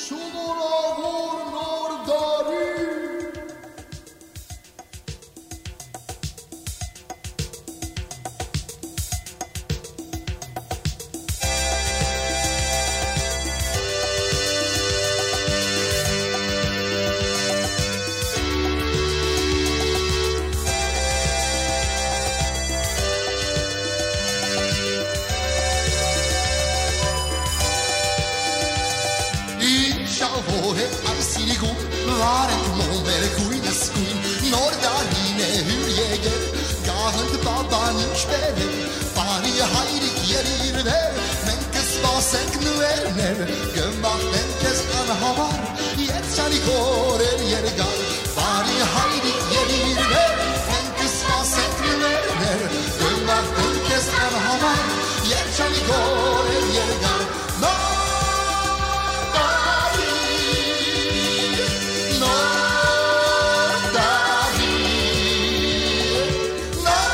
Շնորհավոր Նոր տարի։ Ինչաւոր է այս իրիկուն, վարենք մոմեր գույնս գույն, նոր տարին է հյուր եկել, գաղտնդ պապան ինչ բերել, բարի հայրիկ ելիր վեր, մենք կսպասենք նուերներ, կմաղթենք քեզ անհավար, երջանիկ օրեր երկար, բարի հայրիկ ելիր վեր, մենք կսպասենք նուերներ, կմաղթենք քեզ անհավար, Երջանիկ օրեր երկար, նոր տարի, նոր տարի, նոր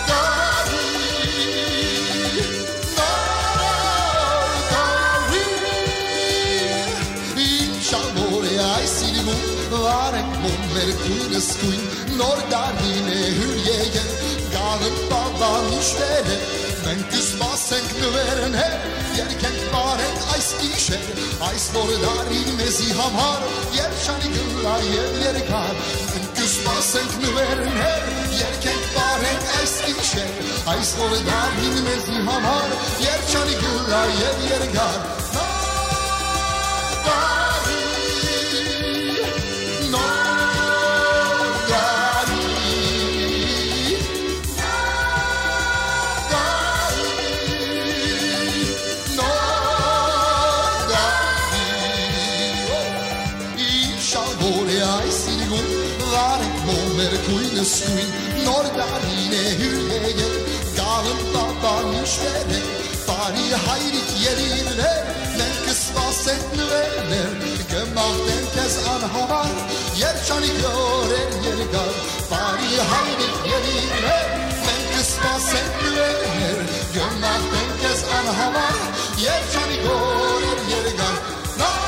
տարի, նոր տարի։ Ինչ ալ որ է այս իրմուն, վարենք մոմ մեր քույնս քույն, նոր տարին է հյուր եկել, գաղն պապան միշտեր է, մենք կսպասենք նուերներ, երկենք պարենք այս գիշեր, այս նոր տարին մեզի համար երջանիկ ըլլայ եւ երկար, մենք կսպասենք նուերներ, երկենք պարենք այս գիշեր, այս նոր տարին մեզի համար երջանիկ ըլլայ եւ երկար։ Նոր տարի, նոր տարի, նոր տարի, նոր տարի։ Ինչ ալ որ է այս իրգուն, վարենք մոմ մեր քույնս քույն, նոր տարին է հյուր եկել, գաղն պապան միշտեր է, բարի հայրիկ ելիրներ, մենք կսպասենք նուերներ, կմաղթենք քեզ անհամար, երջանիկ օրեր երկար, բարի հայրիկ ելիրներ, մենք կսպասենք նուերներ, կմաղթենք քեզ անհամար, երջանիկ օրեր երկար։ Նոր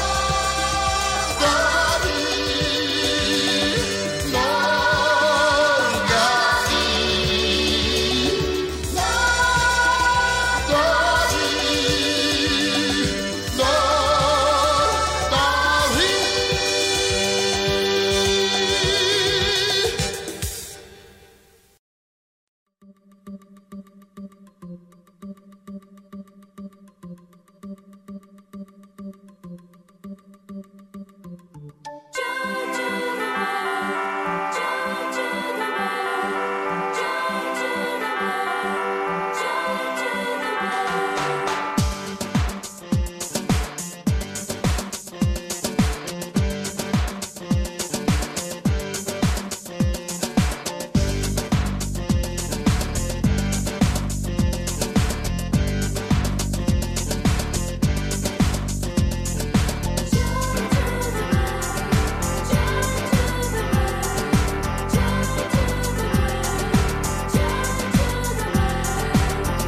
տարի, նոր տարի, նոր տարի, նոր տարի։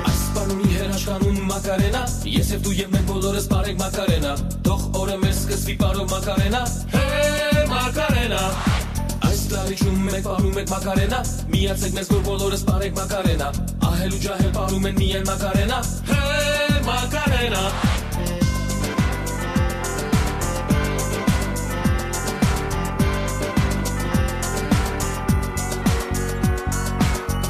Այս պարունի հրաշքանուն Մակարենա, ես եւ դու եւ մենք բոլորս պարենք Մակարենա, թող օրը մեր սկսվի պարով Մակարենա, հե Մակարենա։ Այս լարիչում մենք պարում ենք Մակարենա, միացեք մեզ, որ բոլորս պարենք Մակարենա, ահել ու ջահել պարում են միայն Մակարենա, հե Մակարենա։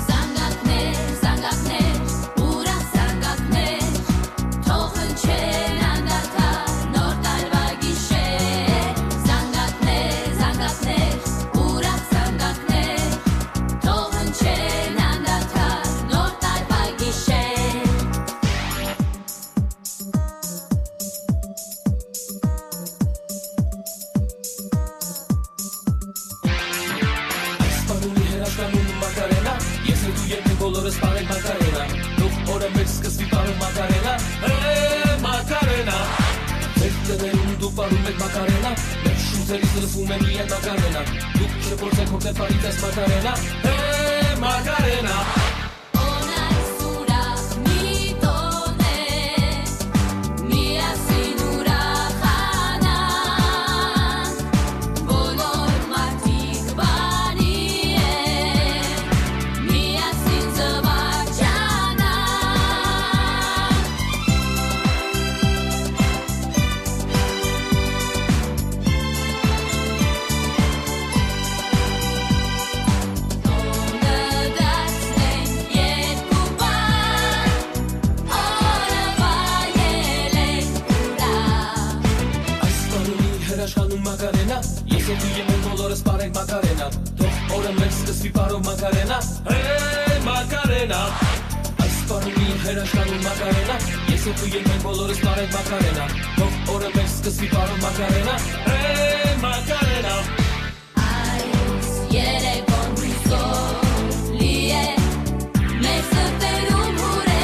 Զանգակներ, զանգակներ, ուրախ զանգակներ, թող հնչեն անդադար նոր տարուայ գիշեր։ Զանգակներ, զանգակներ, ուրախ զանգակներ, թող հնչեն անդադար նոր տարուայ գիշեր։ Այս պարունի հրաշքանուն Մակարենա, ես եւ դու երբեք բոլորս պարենք Մակարենա, թող օրը մեր սկսվի պարով Մակարենա, հե Մակարենա։ Մեր տներում դուք պարում եք Մակարենա, մեր շունչերից լսվում է միայն Մակարենա, դուք չփորձեք հոգնել պարի ձեզ Մակարենա, հե Մակարենա։ Օնայ սուրախ մի տոն է, միասին ուրախանանք, բոլոր մարդիկ բանի են, միասին զվարճանանք։ Տոնը դարձնենք երկու պար, օրը վայելենք ուրախ։ Այս պարունի հրաշքանուն Մակարենա, ես եւ դու եւ մենք բոլորս պարենք Մակարենա, թող օրը մեր սկսվի պարով Մակարենա, հե Մակարենա։ Այս պարունի հրաշքանուն Մակարենա, ես եւ դու եւ մենք բոլորս պարենք Մակարենա, թող օրը մեր սկսվի պարով Մակարենա, հե Մակարենա։ Այս երեկոն հույսով լի է, մեր սրտերում հուր է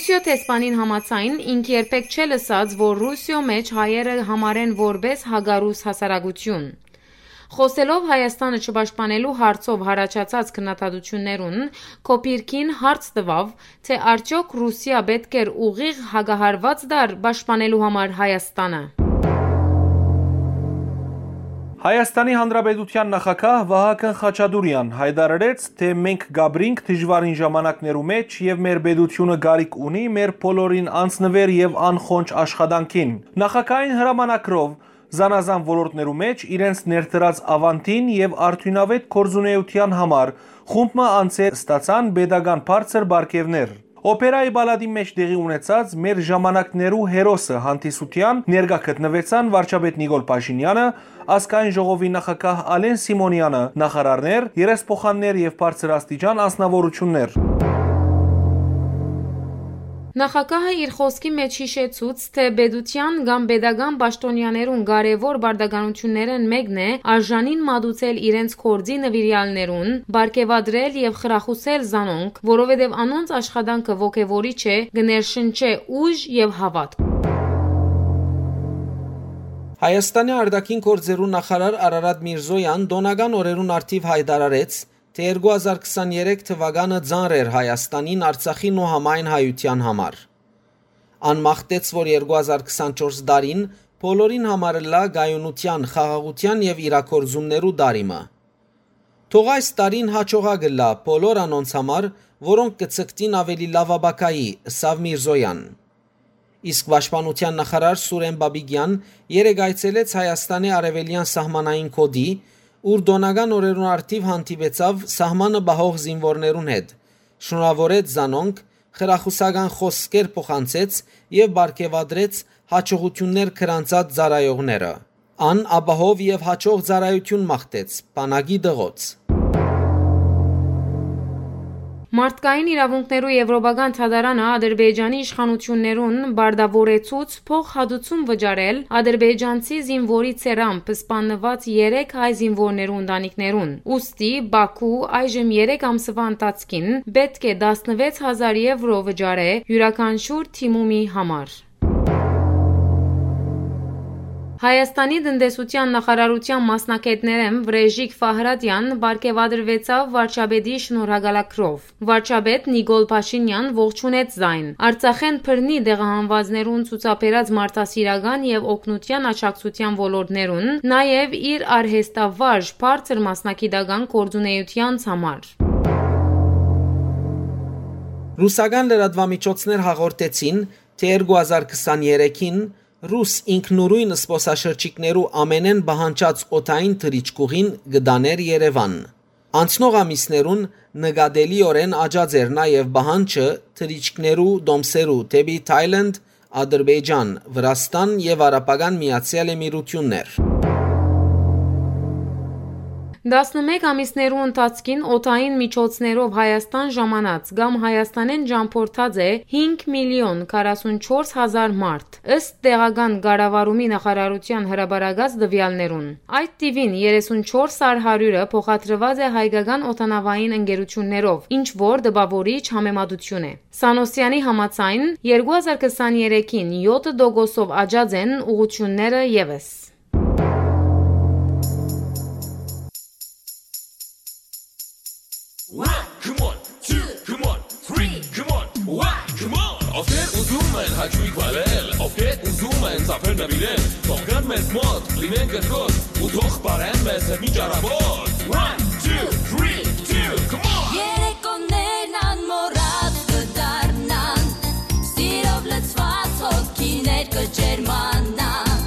Ռուսիոյ դեսպանին համաձայն, ինք երբեք չէ լսած, որ Ռուսիոյ մէջ հայերը համարեն որպէս հակառուս հասարակություն։ Խօսելով Հայաստանը չպաշտպանելու հարցով յառաջացած քննադատութիւններուն, Քոփիրքին հարց տուաւ, թէ արդեօք Ռուսիա պէտք էր ուղիղ հակահարուած տար պաշտպանելու համար Հայաստանը։ Հայաստանի Հանրապետութեան նախագահ Վահագն Խաչատուրեան յայտարարեց, թէ մենք կապրինք դժուարին ժամանակներու մէջ եւ մեր պետութիւնը կարիք ունի մեր բոլորին անձնուեր եւ անխոնջ աշխատանքին։ Նախագահային հրամանագրով զանազան ոլորտներու մէջ իրենց ներդրած աւանդին եւ արդիւնաւէտ գործունեութեան համար խումբ մը անցեր ստացան պետական բարձր պարգեւներ։ Օպերայի պալատի մէջ տեղի ունեցած մեր ժամանակներու հերոսը հանդիսութեան ներկայ գտնուեցան վարչապետ Նիկոլ Փաշինեանը, ազգային ժողովի նախագահ Ալեն Սիմոնեանը, նախարարներ, երեսփոխաններ եւ բարձրաստիճան անձնաւորութիւններ։ Նախագահը իր խօսքի մէջ յիշեցուց, թէ պետութեան կամ պետական պաշտօնեաներուն կարեւոր պարտականութիւններէն մէկն է արժանին մատուցել իրենց գործի նուիրեալներուն, պարգեւատրել եւ խրախուսել զանոնք, որովհետեւ անոնց աշխատանքը ոգեւորիչ է, կը ներշնչէ ուժ եւ հաւատք։ Հայաստանի արտաքին գործերու նախարար Արարատ Միրզոյան տօնական օրերուն առթիւ յայտարարեց, թէ երկու հազար քսաներեք թուականը ծանր էր Հայաստանին, Արցախին ու համայն հայութեան համար։ Ան մաղթեց, որ երկու հազար քսանչորս տարին բոլորին համար ըլլայ կայունութեան, խաղաղութեան եւ իրագործումներու տարի մը։ Թող այս տարին հաջողակ ըլլայ բոլոր անոնց համար, որոնք կը ձգտին աւելի լաւ ապագայի, ըսաւ Միրզոյան։ Իսկ պաշտպանութեան նախարար Սուրեն Պապիկեան երեկ այցելեց Հայաստանի արեւելեան սահմանային գօտի, ուր տօնական օրերուն առթիւ հանդիպեցաւ սահմանը պահող զինուորներուն հետ, շնորհաւորեց զանոնք, խրախուսական խօսքեր փոխանցեց եւ պարգեւատրեց յաջողութիւններ գրանցած ծառայողները։ Ան ապահով եւ յաջող ծառայութիւն մաղթեց բանակի տղոց։ Մարդկային իրաւունքներու Եվրոպական դատարանը Ադրբեջանի իշխանութիւններուն պարտաւորեցուց փոխհատուցում վճարել ադրբեջանցի զինուորի ցերամբը սպաննուած երեք հայ զինուորներու ընտանիքներուն։ Ուստի Բաքու այժմ երեք ամսուայ ընթացքին պէտք է տասնվեց հազար եվրո վճարէ իւրաքանչիւր դիմումի համար։ Հայաստանի տնտեսութեան նախարարութեան մասնագէտներէն Վրէժիկ Ֆահրատեան պարգեւատրուեցաւ վարչապետի շնորհակալագրով։ Վարչապետ Նիկոլ Փաշինեան ողջունեց զայն։ Արցախէն բռնի տեղահանուածներուն ցուցաբերած մարդասիրական եւ օգնութեան աջակցութեան ոլորտներուն, նաեւ իր արհեստավարժ բարձր մասնագիտական գործունեութեանց համար։ Ռուսական լրատուամիջոցներ հաղորդեցին, թէ երկու հազար քսաներեքին ռուս ինքնուրույն զբօսաշրջիկներու ամէնէն պահանջած օդային թռիչքուղին կը տանէր Երեւան։ Անցնող ամիսներուն նկատելիօրէն աճած էր նաեւ պահանջը թռիչքներու տոմսերու դէպի Թայլանդ, Ադրբեջան, Վրաստան եւ Արաբական Միացեալ Էմիրութիւններ։ Տասնմէկ ամիսներու ընթացքին օդային միջոցներով Հայաստան ժամանած կամ Հայաստանէն ճամբորդած է հինգ միլիոն քառասունչորս հազար մարդ, ըստ տեղական կառավարումի նախարարութեան հրապարակած տուեալներուն։ Այդ թիւին երեսունչորս առ հարիւրը փոխադրուած է հայկական օդանաւային ընկերութիւններով, ինչ որ տպաւորիչ համեմատութիւն է։ Սանոսեանի համաձայն, երկու հազար քսաներեքին յոթ տոկոսով աճած են ուղղութիւնները եւս։ One, come on, two, come on, three, come on, one, come on. Ովքեր ուզում են հաճույք վարել, ովքեր ուզում են ծափեր նվիրել, թող գան մեզ մոտ, լինեն կրկոտ, ու թող պարեն մեզ հետ մի ճարապոտ։ One, two, three, two, come on. Երեկոներն անմոռաց կդառնան, սիրով լցված հոգիներ կջերմանան,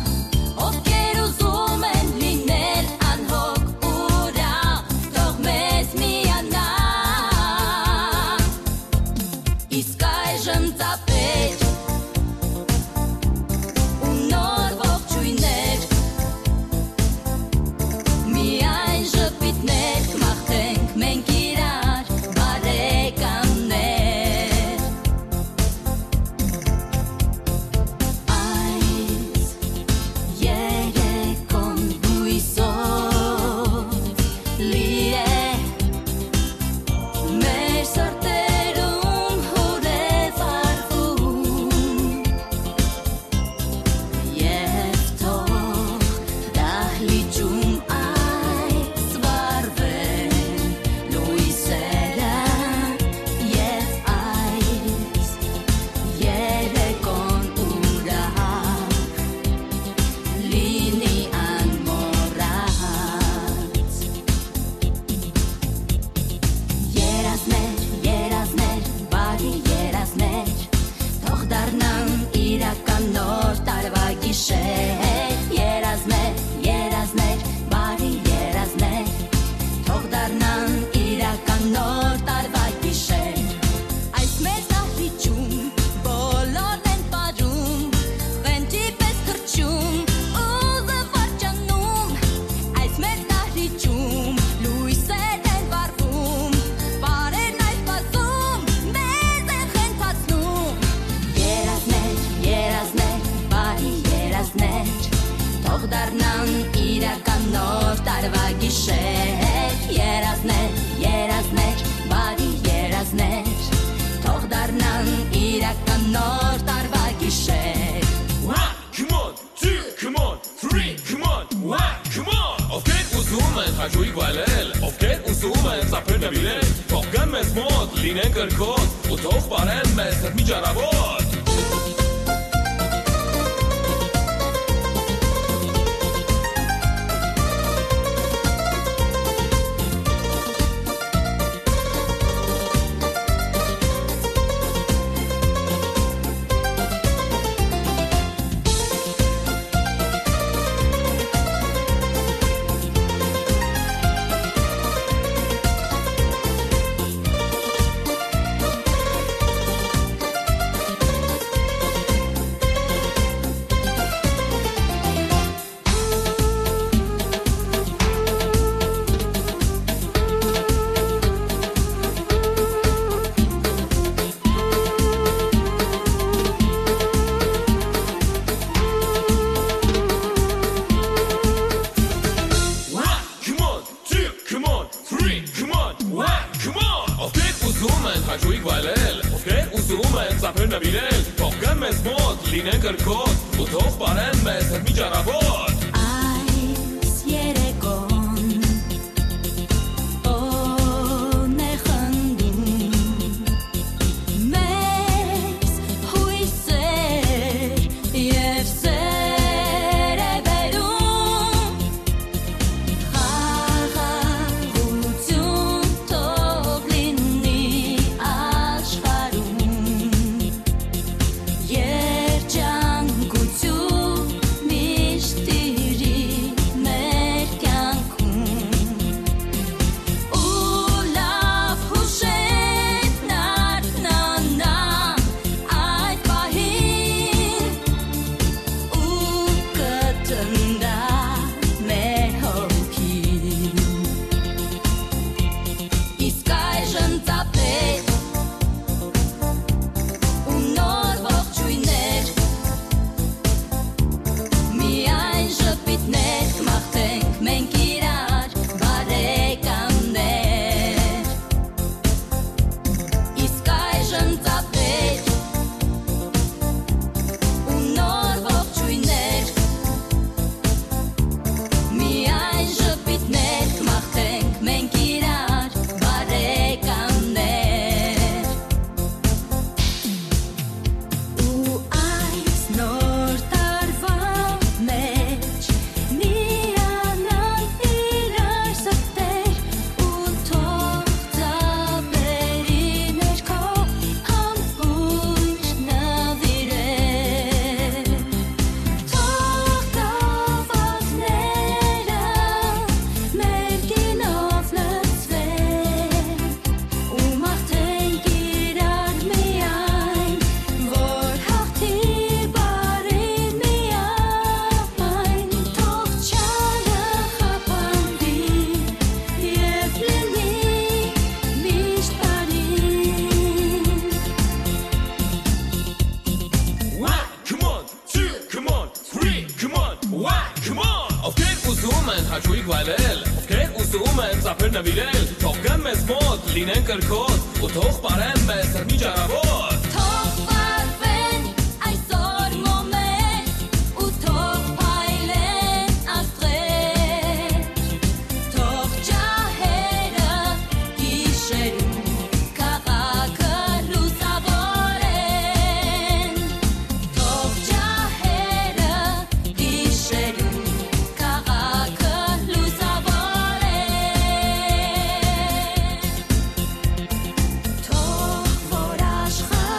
ովքեր ուզում են լինել անհոգ ուրախ, թող մեզ միանան։ Իսկ այժմ ծափեր ու նոր ողջույններ, միայն ժպ Նոր տարուայ գիշեր։ One, come on, two, come on, three, come on, one, come on. Ովքեր ուզում են հաճույք վայելել, ովքեր ուզում են ծափեր նվիրել, թող գան մեզ մոտ, լինեն կրքոտ, ու թող պարեն մեզ հետ մի ճարավոտ։ One, come on, two, come on, three, come on, one, come on. Ովքեր ուզում են հաճույք վայելել, ովքեր ուզում են ծափեր նվիրել, թող գան մեզ մոտ, լինեն կրքոտ, ու թող պարեն մեզ հետ մի ճարավոտ։ Այս երեկոն օն է խնդում մեզ հոյսեր եւ սեր է բերում։ Խաղաղութիւն թող լինի աշխարհում, երջանկութիւն միշտ տիրի մեր կեանքում։ Ու լաւ յուշերն արթնանան այդ պահին, ու կտրնտայ մեր հոգին։ Իսկ այժմ ծափեր ու նոր ողջոյններ, միայն ժպիտներ կմաղթենք մենք իրար, բարեկամներ։ Իսկ այժմ ծափեր ու նոր ողջոյններ, միայն ժպիտներ կմաղթենք մենք իրար, բարեկամներ։ Ու այս նոր տարուան մէջ միանան իրար սրտեր ու թող ծափերի ներքո ամբողջ նվիրել։ Թող գաւակները մեր գինով լցվեն ու մաղթենք իրար միայն, որ հաղթի բարին միայն, թող չարը խափանուի եւ լինի միշտ բարին։ One, come on, two, come on, three, come on, one, come on. Ովքեր ուզում են հաճույք վայելել, ովքեր ուզում են ծափեր նվիրել, թող գան մեզ մոտ, լինեն կրքոտ, ու թող պարեն մեզ հետ մի ճարավոտ։ Թող վառվեն այսօր մոմեր, ու թող փայլեն աստղեր, թող ջահերը գիշերուն քաղաքը լուսաւորեն, թող ջահերը գիշերուն քաղաքը լուսաւորեն, թող որ աշխարհ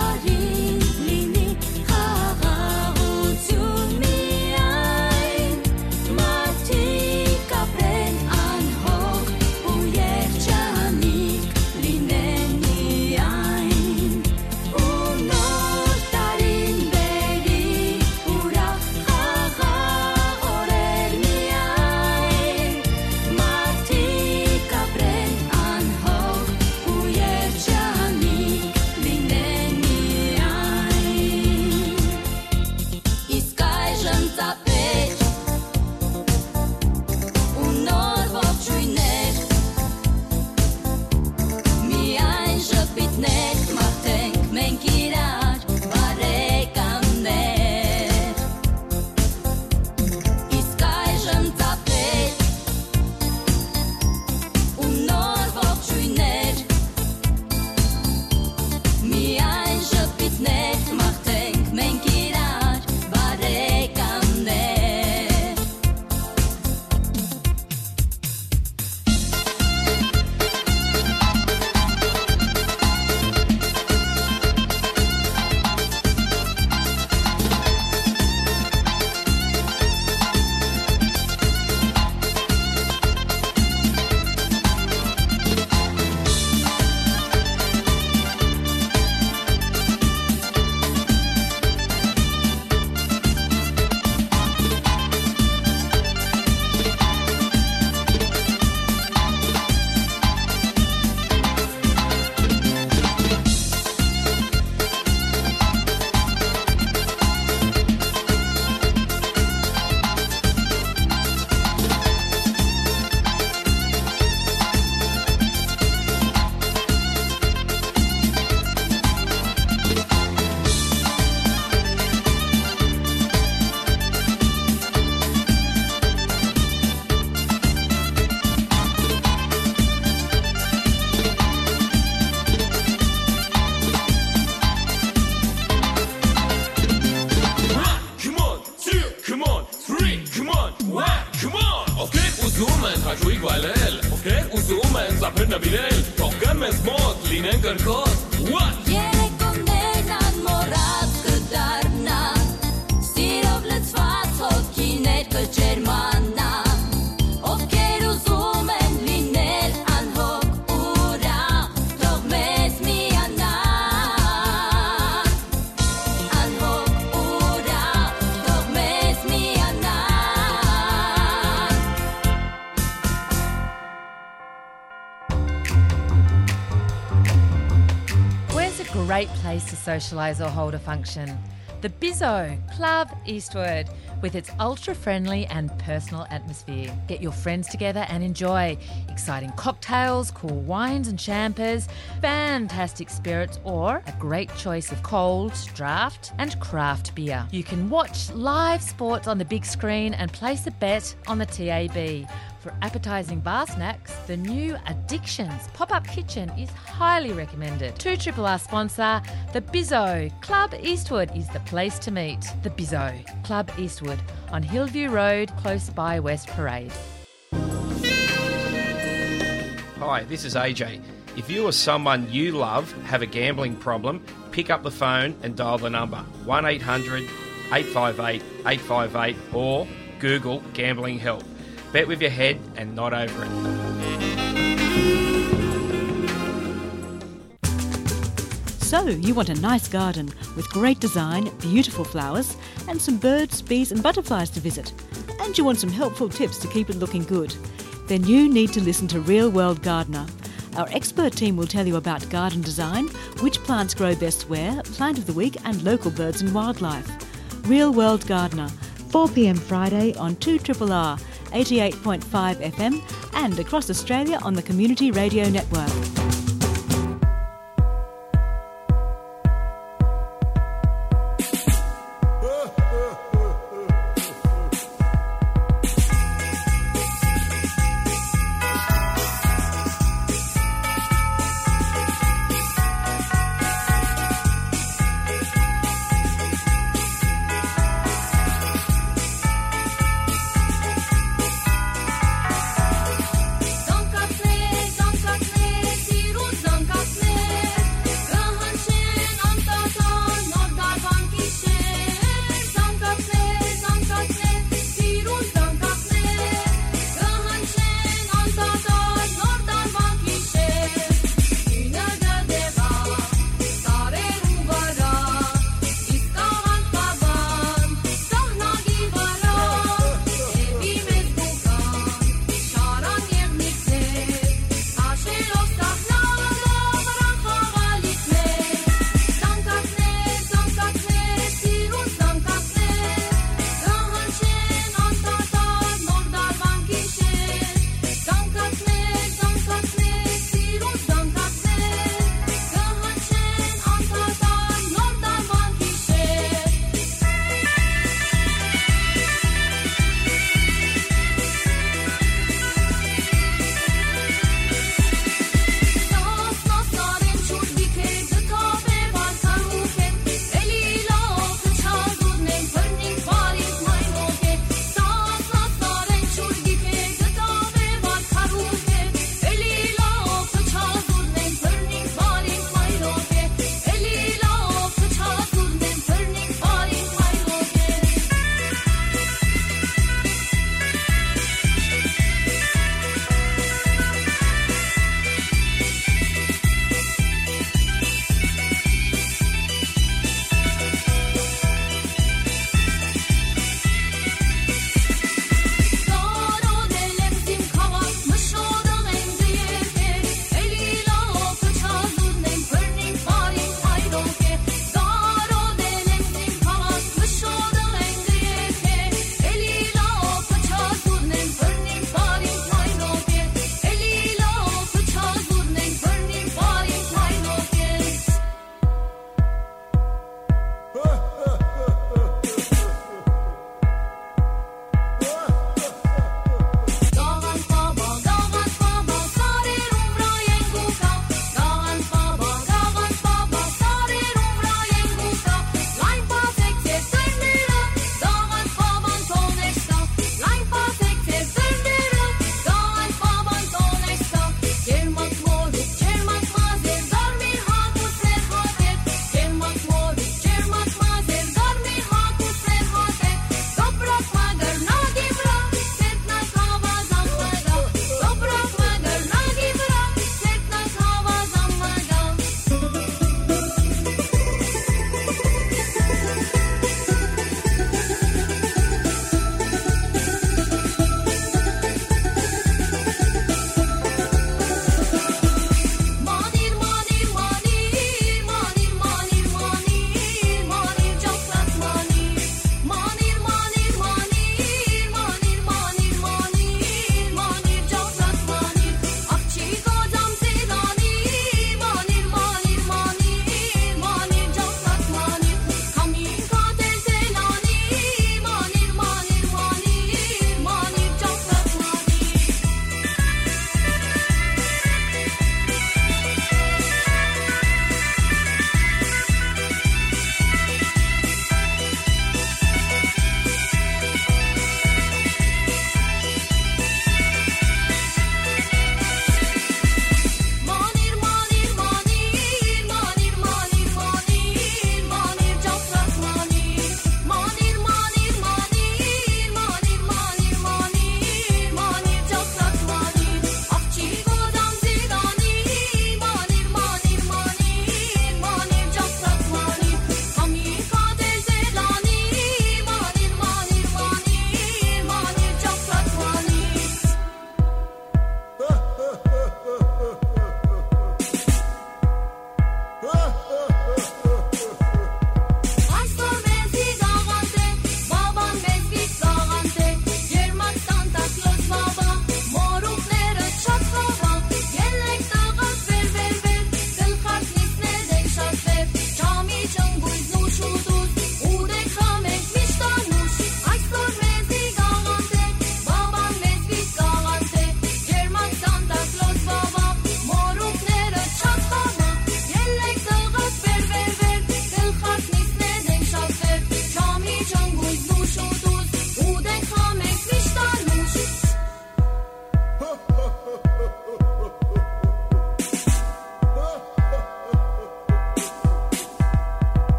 Ուզում են սափեր նվիրել, թող գան մեզ մոտ, լինեն կրկոտ։ What? Երեկոներն անմոռաց կդառնան, սիրով լցված հոգիներ կջերմանան, ովքեր ուզում են լինել անհոգ ուրախ, թող մեզ միանան, անհոգ ուրախ, թող մեզ միանան։ Where's a great place to socialise or hold a function? The Bizzo, Club Eastwood, with its ultra-friendly and personal atmosphere. Get your friends together and enjoy exciting cocktails, cool wines and champers, fantastic spirits, or a great choice of cold, draft, and craft beer. You can watch live sports on the big screen and place a bet on the T A B. For appetising bar snacks, the new Addictions pop-up kitchen is highly recommended. Two triple R sponsor, The Bizzo. Club Eastwood is the place to meet. The Bizzo, Club Eastwood, on Hillview Road, close by West Parade. Hi, this is A J. If you or someone you love have a gambling problem, pick up the phone and dial the number one eight hundred eight five eight eight five eight or Google gambling help. Bet with your head and not over it. So, you want a nice garden with great design, beautiful flowers, and some birds, bees, and butterflies to visit. And you want some helpful tips to keep it looking good. Then you need to listen to Real World Gardener. Our expert team will tell you about garden design, which plants grow best where, plant of the week, and local birds and wildlife. Real World Gardener, four p.m. Friday on two triple R, eighty-eight point five F M, and across Australia on the Community Radio Network.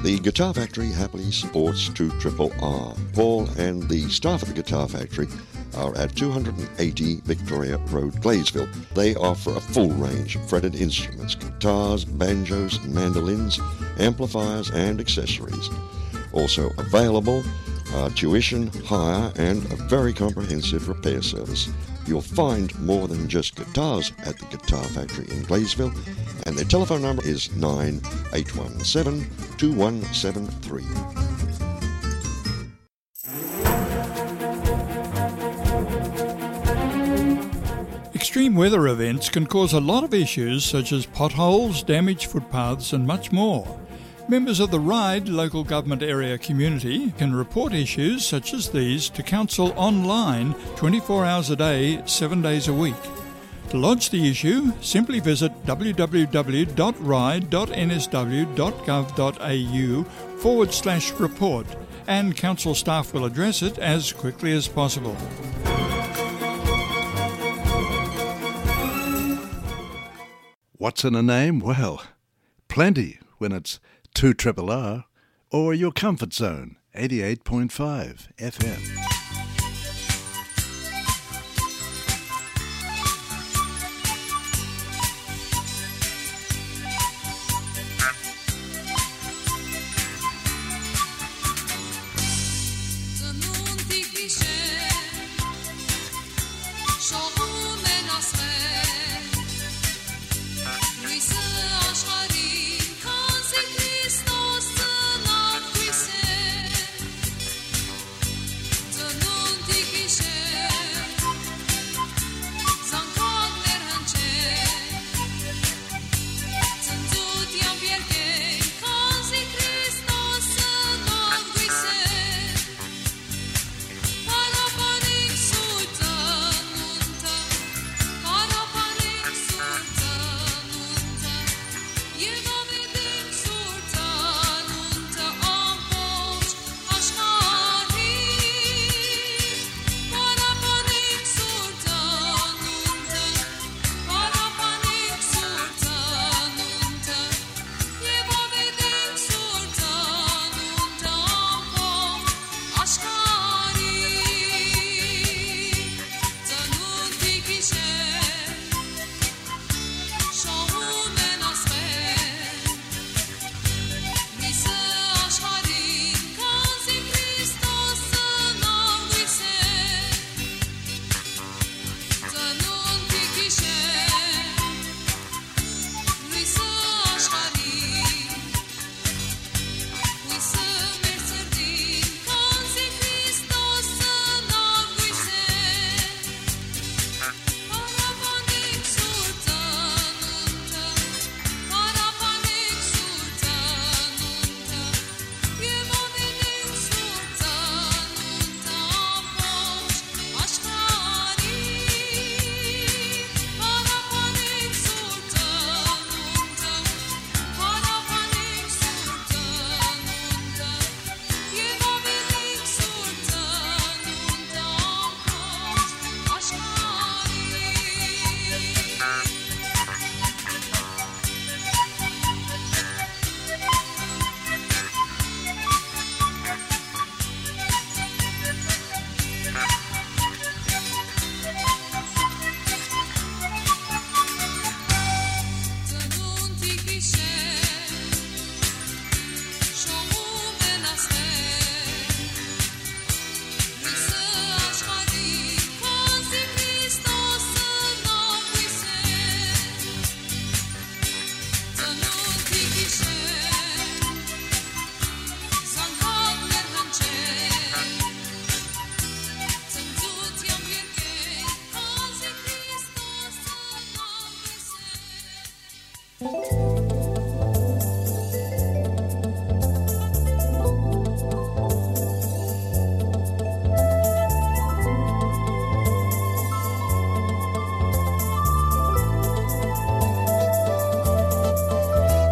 The Guitar Factory happily supports two triple R. Paul and the staff at the Guitar Factory are at two hundred eighty Victoria Road, Gladesville. They offer a full range of fretted instruments, guitars, banjos, mandolins, amplifiers, and accessories. Also available are tuition, hire, and a very comprehensive repair service. You'll find more than just guitars at the Guitar Factory in Gladesville, and their telephone number is nine eight one seven, two one seven three. Extreme weather events can cause a lot of issues such as potholes, damaged footpaths, and much more. Members of the RIDE local government area community can report issues such as these to council online twenty-four hours a day, seven days a week. To lodge the issue, simply visit w w w dot ride dot n s w dot gov dot a u forward slash report, and council staff will address it as quickly as possible. What's in a name? Well, plenty when it's two triple R or your comfort zone, eighty-eight point five F M.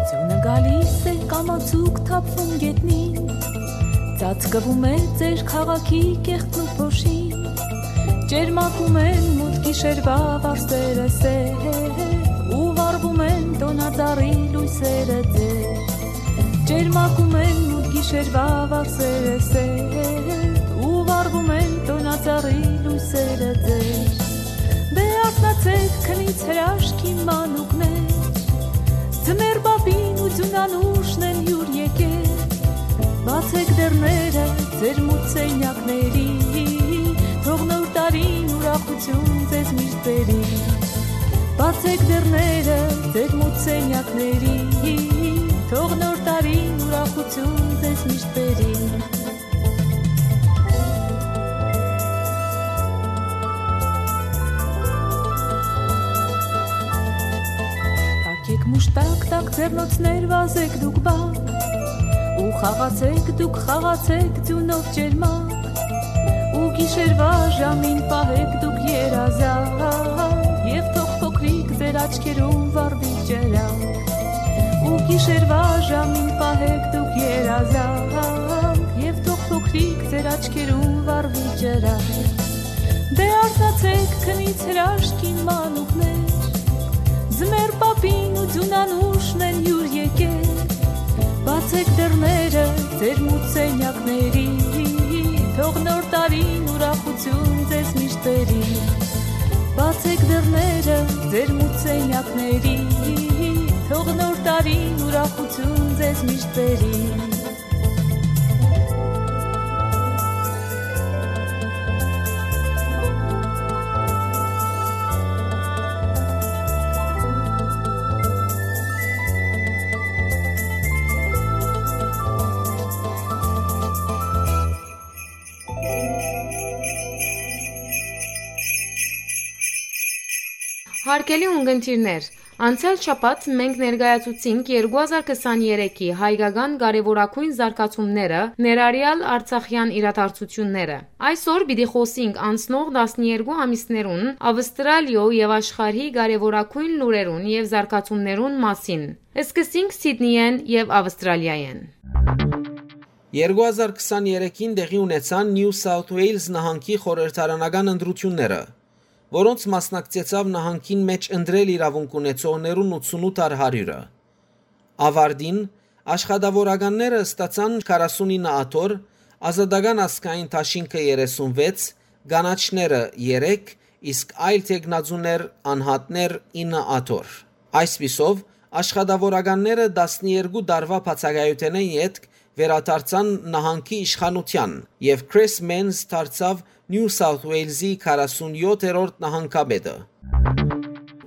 Ձյունը գալիս է, կամացուկ թափվում գետնին, ծածկվում է ձեր քաղաքի կեղտն ու փոշին։ Ճերմակում են մութ գիշերվա վարսերը սեր, ու վառվում են տոնածառի լույսերը ձեր։ Ճերմակում են Շերվա վարսերը սեր, ու վառվում են տոնածառի լոյսերը ձեր։ Դե արթնացեք, քնից հրաշքի մանուկներ, ձմեռ պապին ու ձյունանուշն են յուր եկել։ Բացեք դռները ձեր մութ սենյակների, թող նոր տարին ուրախություն ձեզ միշտ բերի։ Բացեք դռները ձեր մութ սենյակների, թող նոր տարին ուրախություն ձեզ միշտ բերի։ Թակեք մուշտակ տակ ձեռնոցներ վազեք դուք բակ, ու խաղացեք դուք, խաղացեք ձյունով ճերմակ, ու գիշերվա ժամին պահեք դուք երազանք, եւ թող փոքրիկ ձեր աչքերուն վառվի ճերակ, ու գիշերվա ժամին պահեք դուք երազանք, եւ թող փոքրիկ ձեր աչքերուն վառվի ճերակ։ Դե արթնացեք, քնից հրաշքի մանուկներ, ձմեռ պապին ու ձյունանուշն են յուր եկել։ Բացեք դռները ձեր մութ սենյակների, թող նոր տարին ուրախություն ձեզ միշտ բերի։ Բացեք դռները ձեր մութ սենյակների, թող նոր տարին ուրախություն ձեզ միշտ բերի։ Հարգելի ունգընտիրներ, անցեալ շաբաթ մենք ներկայացուցինք երկու հազար քսաներեքի հայկական կարեւորագույն զարգացումները, ներառեալ արցախեան իրադարձութիւնները։ Այսօր պիտի խօսինք անցնող տասներկու ամիսներուն Ավստրալիոյ եւ աշխարհի կարեւորագույն լուրերուն եւ զարգացումներուն մասին։ Սկսենք Սիդնիէն եւ Ավստրալիայէն։ Երկու հազար քսաներեքին տեղի ունեցան Նիու Սաութ Ուէյլզ նահանգի խորհրդարանական ընտրութիւնները, որոնց մասնակցեցաւ նահանգին մէջ ընտրել իրաւունք ունեցողներուն ութսունութ առ հարիւրը։ Աւարտին, աշխատաւորականները ստացան քառասունինը աթոռ, Ազատական ազգային դաշինքը երեսունվեց, կանաչները՝ երեք, իսկ այլ թեկնածուներ, անհատներ՝ ինը աթոռ։ Այսպիսով, աշխատաւորականները տասներկու տարուայ բացակայութենէն ետք վերադարձան նահանգի իշխանութեան, եւ Քրիս Մենզ դարձաւ Նիու Սաութ Ուէյլզի քառասունյոթերորդ նահանգապետը։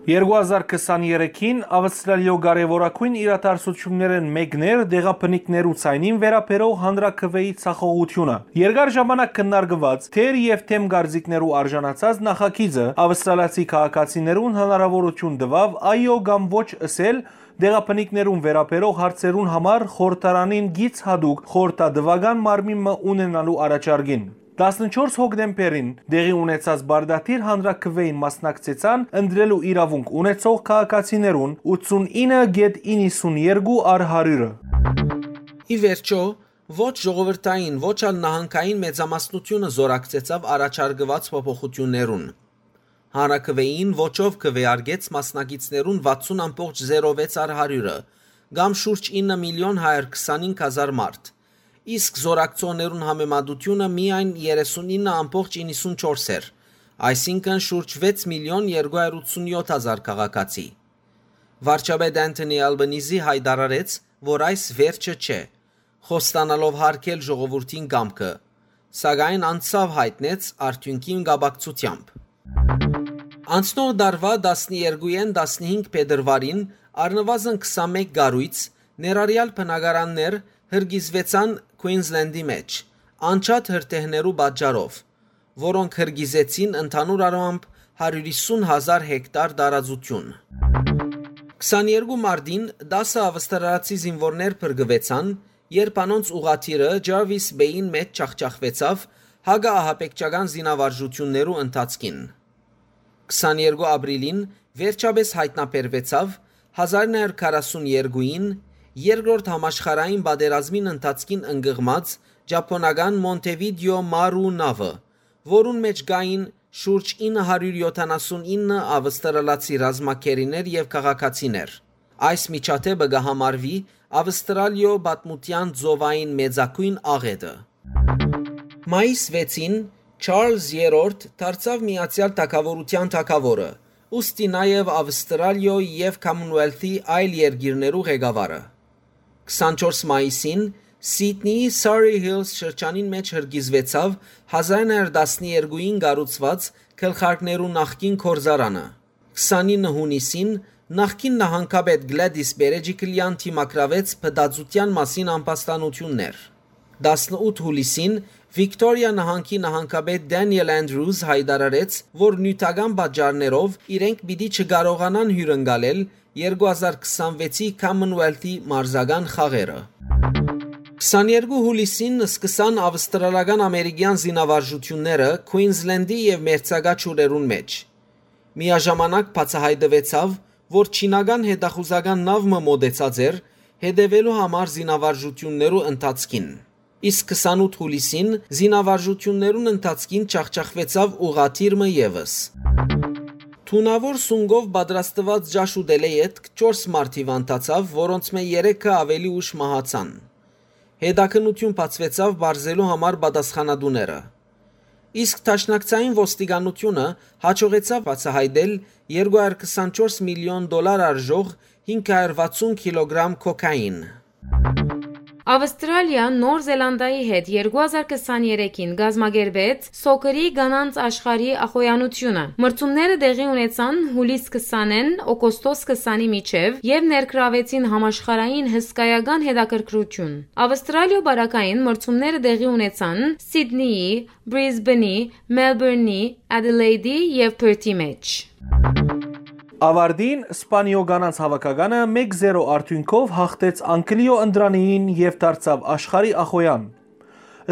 Երկու հազար քսաներեքին Ավստրալիոյ կարեւորագույն իրադարձութիւններէն մէկն էր տեղաբնիկներու ձայնին վերաբերող հանրաքուէի ձախողութիւնը։ Երկար ժամանակ քննարկուած, թեր եւ դէմ կարծիքներու արժանացած նախագիծը Ավստրալիացի քաղաքացիներուն հնարաւորութիւն տուաւ այո կամ ոչ ըսել տեղաբնիկներուն վերաբերող հարցերուն համար խորհրդարանին գիծ յատուկ խորհրդատուական մարմին մը ունենալու առաջարկին։ Տասնչորս հոկտեմբերին տեղի ունեցած պարտադիր հանրաքուէին մասնակցեցան ընտրելու իրաւունք ունեցող քաղաքացիներուն ութսունինը գեթ իննսուններկու առ հարիւրը։ Ի վերջոյ, ոչ ժողովրդային, ոչ ալ նահանգային մեծամասնութիւնը զօրակցեցաւ առաջարկուած փոփոխութիւններուն։ Հանրաքուէին ոչով քուէարկեց մասնակիցներուն վաթսուն ամբողջ զերո վեց առ հարիւրը, կամ շուրջ ինը միլիոն հարիւր քսանհինգ հազար մարդ, իսկ զօրակցողներուն համեմատութիւնը միայն երեսունինը ամբողջ իննսունչորս էր, այսինքն՝ շուրջ վեց միլիոն երկու հարիւր ութսունյոթ հազար քաղաքացի։ Վարչապետ Անթոնի Ալբանիզի յայտարարեց, որ այս վերջը չէ, խոստանալով յարգել ժողովուրդին կամքը, սակայն անցաւ յայտնեց արդիւնքին կապակցութեամբ։ Անցնող տարուայ տասներկուէն տասնհինգ փետրուարին առնուազն քսանմէկ կառոյց, ներառեալ բնակարաններ, հրկիզուեցան Քուինզլենդի մէջ, անջատ հրդեհներու պատճառով, որոնք հրկիզեցին ընդհանուր առմամբ հարիւր յիսուն հազար հեկտար տարածութիւն։ Քսաներկու մարտին տասը ավստրալացի զինուորներ փրկուեցան, երբ անոնց ուղղաթիռը Ջարվիս Պէյին մէջ ջախջախուեցաւ հակաահաբեկչական զինավարժութիւններու ընթացքին։ Քսաներկու ապրիլին վերջապէս յայտնաբերուեցաւ հազար նոյ հարիւր քառասուններկուին, երկրորդ համաշխարհային պատերազմին ընթացքին ընկղմած ճապոնական Մոնթեվիդեո Մարու նաւը, որուն մէջ կային շուրջ ինը հարիւր յոթանասունինը ավստրալացի ռազմագերիներ եւ քաղաքացիներ։ Այս միջադէպը կը համարուի Ավստրալիոյ պատմութեան ծովային մեծագոյն աղէտը։ Մայիս վեցին Չարլզ Երրորդ դարձաւ Միացեալ Թագաւորութեան թագաւորը, ուստի նաեւ Ավստրալիոյ եւ Commonwealth-ի այլ երկիրներու ղեկավարը։ Քսանչորս մայիսին Սիդնիի Surry Hills շրջանին մէջ հրկիզուեցաւ հազար ինը հարյուր տասներկուին կառուցուած գլխարկներու նախկին գործարանը։ Քսանինը յունիսին նախկին նահանգապետ Գլադիս Պերեջիկլեան դիմագրաւեց փտածութեան մասին ամբաստանութիւններ։ Տասնութ յուլիսին Վիկտորիա նահանգի նահանգապետ Դենիել Անդրուզ յայտարարեց, որ նիւթական պատճառներով իրենք պիտի չկարողանան հիւրընկալել երկու հազար քսանվեցի Commonwealth-ի մարզական խաղերը։ Քսաներկու յուլիսին սկսան ավստրալական ամերիկեան զինավարժութիւնները Քուինզլենդի եւ մերձակայ ջուրերուն մէջ։ Միաժամանակ բացայայտուեցաւ, որ չինական հետախուզական նաւ մը մօտեցած էր, հետեւելու համար զինավարժութիւններու ընթացքին։ Իսկ քսանութ յուլիսին զինավարժութիւններուն ընթացքին ջախջախուեցաւ ուղղաթիռ մը եւս։ Թունաւոր սունկով պատրաստուած ճաշ ուտելէ ետք չորս մարդ հիւանդացաւ, որոնցմէ երեքը աւելի ուշ մահացան։ Հետաքննութիւն բացուեցաւ պարզելու համար պատասխանատուները։ Իսկ դաշնակցային ոստիկանութիւնը յաջողեցաւ բացայայտել երկու հարյուր քսանչորս միլիոն դոլար արժող հինգ հարյուր վաթսուն կիլոգրամ կոքային։ Ավստրալիա Նոր Զելանդիայի հետ երկու հազար քսաներեքին կազմակերպեց Սոքերի կանանց աշխարհի ախոյանութիւնը։ Մրցումները տեղի ունեցան յուլիս քսանէն օգոստոս քսանի միջեւ եւ ներգրաւեցին համաշխարհային հսկայական հետաքրքրութիւն։ Ավստրալիոյ պարագային մրցումները տեղի ունեցան Սիդնիի, Բրիզբենի, Մելբուրնի, Ադելեյդի եւ Փըրթի մէջ։ Ավարտին Սպանիոյ կանանց հաւաքականը մէկ զերո արդիւնքով յաղթեց Անգլիոյ ընտրանիին եւ դարձաւ աշխարհի ախոյան։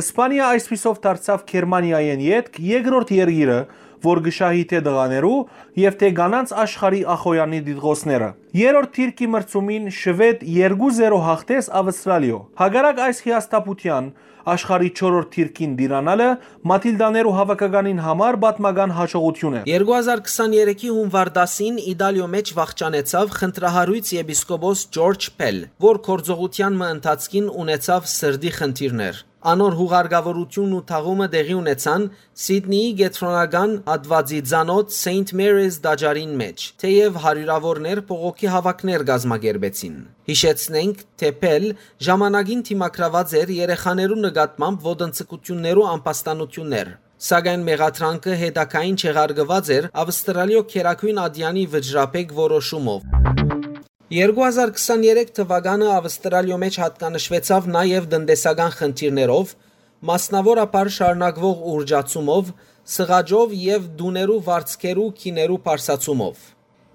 Սպանիա այսպիսով դարձաւ Գերմանիայէն ետք երկրորդ երկիրը, որ կը շահի թէ տղաներու եւ թէ կանանց աշխարհի ախոյանի տիտղոսները։ Երրորդ դիրքի մրցումին Շուեդ երկու զերո յաղթեց Ավստրալիոյ։ Հակառակ այս հիասթափութեան, աշխարհի չորրորդ դիրքին տիրանալը Մաթիլդաներու հաւաքականին համար պատմական յաջողութիւն է։ Երկու հազար քսաներեքի յունուար տասին Իտալիոյ մէջ վախճանեցաւ խնդրահարոյց եպիսկոպոս Ջորջ Փել, որ գործողութեան մը ընթացքին ունեցաւ սրտի խնդիրներ։ Անոր յուղարկաւորութիւնն ու թաղումը տեղի ունեցան Սիդնիի կեդրոնական հատուածի ծանօթ Սեյնթ Մերիզ տաճարին մէջ, թէեւ հարիւրաւորներ բողոքի հաւաքներ կազմակերպեցին։ Յիշեցնենք, թէ Փել ժամանակին դիմագրաւած էր երեխաներու նկատմամբ ոտնձգութիւններու ամբաստանութիւններ, սակայն մեղադրանքը հետագային չեղարկուած էր Ավստրալիոյ գերագոյն ատեանի վճռաբեկ որոշումով։ Երկու հազար քսաներեք թուականը Ավստրալիոյ մէջ յատկանշուեցաւ նաեւ տնտեսական խնդիրներով, մասնաւորաբար շարունակուող ուռճացումով, սղաճով եւ տուներու վարձքերու գիներու բարձրացումով։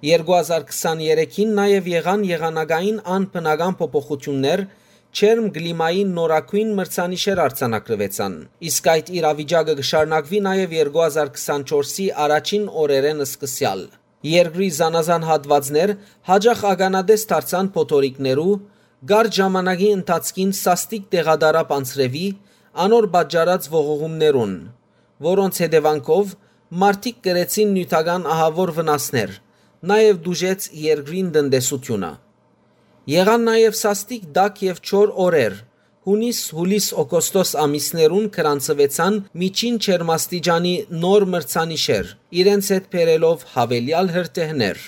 Երկու հազար քսաներեքին նաեւ եղան եղանակային անբնական փոփոխութիւններ, ջերմ կլիմային նորագոյն մրցանիշեր արձանագրուեցան, իսկ այդ իրավիճակը կը շարունակուի նաեւ երկու հազար քսանչորսի առաջին օրերէն սկսեալ։ Երկրի զանազան հատուածներ յաճախ ականատես դարձան փոթորիկներու, կարճ ժամանակի ընթացքին սաստիկ տեղատարապ անձրեւի, անոր պատճառած ողողումներուն, որոնց հետեւանքով մարդիկ կրեցին նիւթական ահաւոր վնասներ, նաեւ տուժեց երկրին տնտեսութիւնը։ Եղան նաեւ սաստիկ տաք եւ չոր օրեր, յունիս, յուլիս, օգոստոս ամիսներուն գրանցուեցան միջին ջերմաստիճանի նոր մրցանիշեր, իրենց հետ բերելով յաւելեալ հրդեհներ։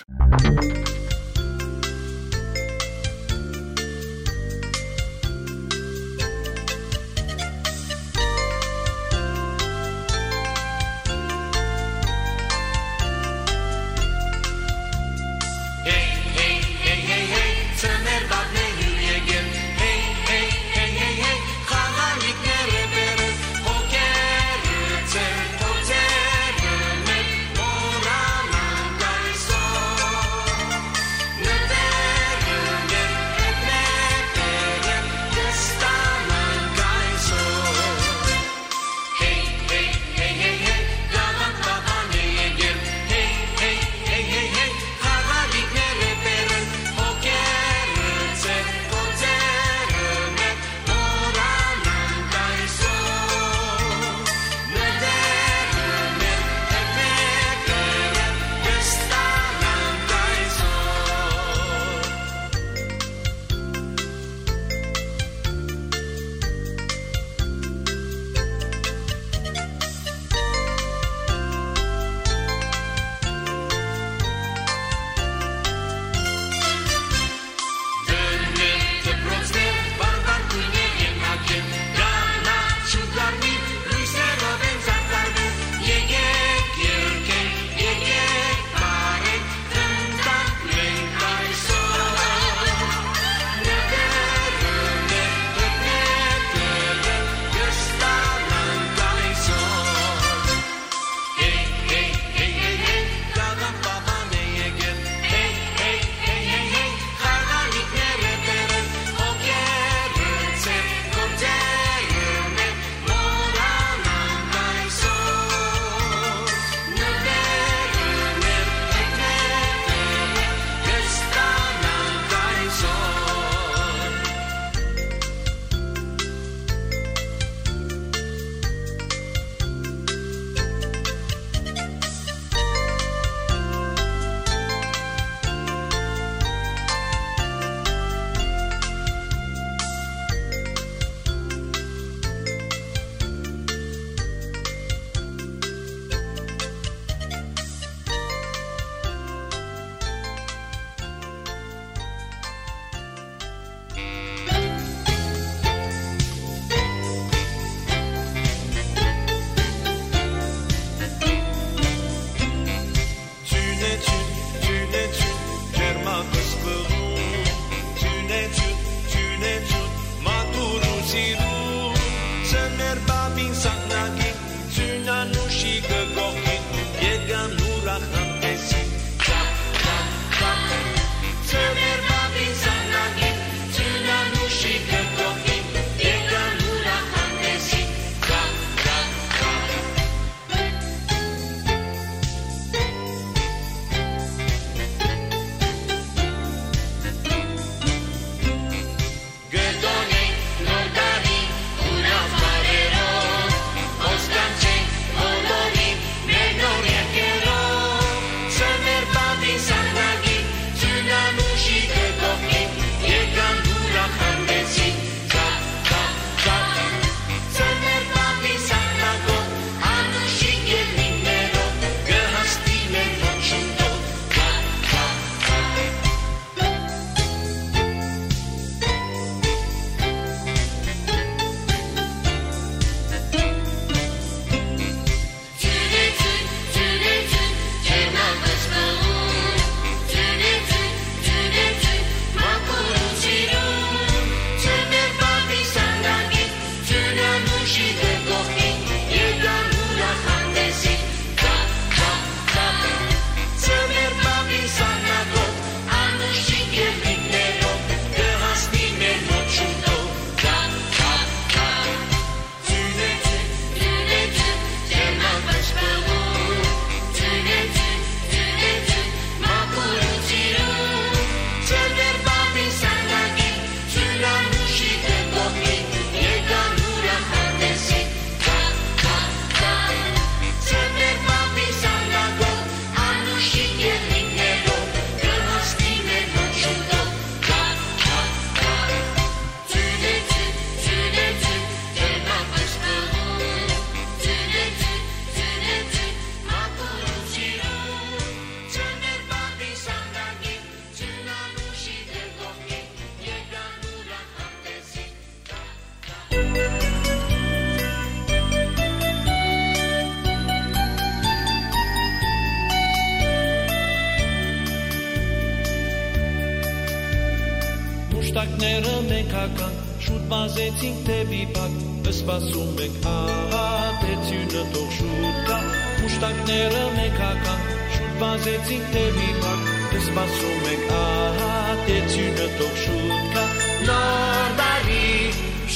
Մուշտակները մենք հագանք, շուտ վազեցինք դեպի բակ, սպասում ենք, ահա, դեցիւնը թող շուտ գայ։ Մուշտակները մենք հագանք, շուտ վազեցինք դեպի բակ, սպասում ենք, ահա, դեցիւնը թող շուտ գայ։ Նոր տարի,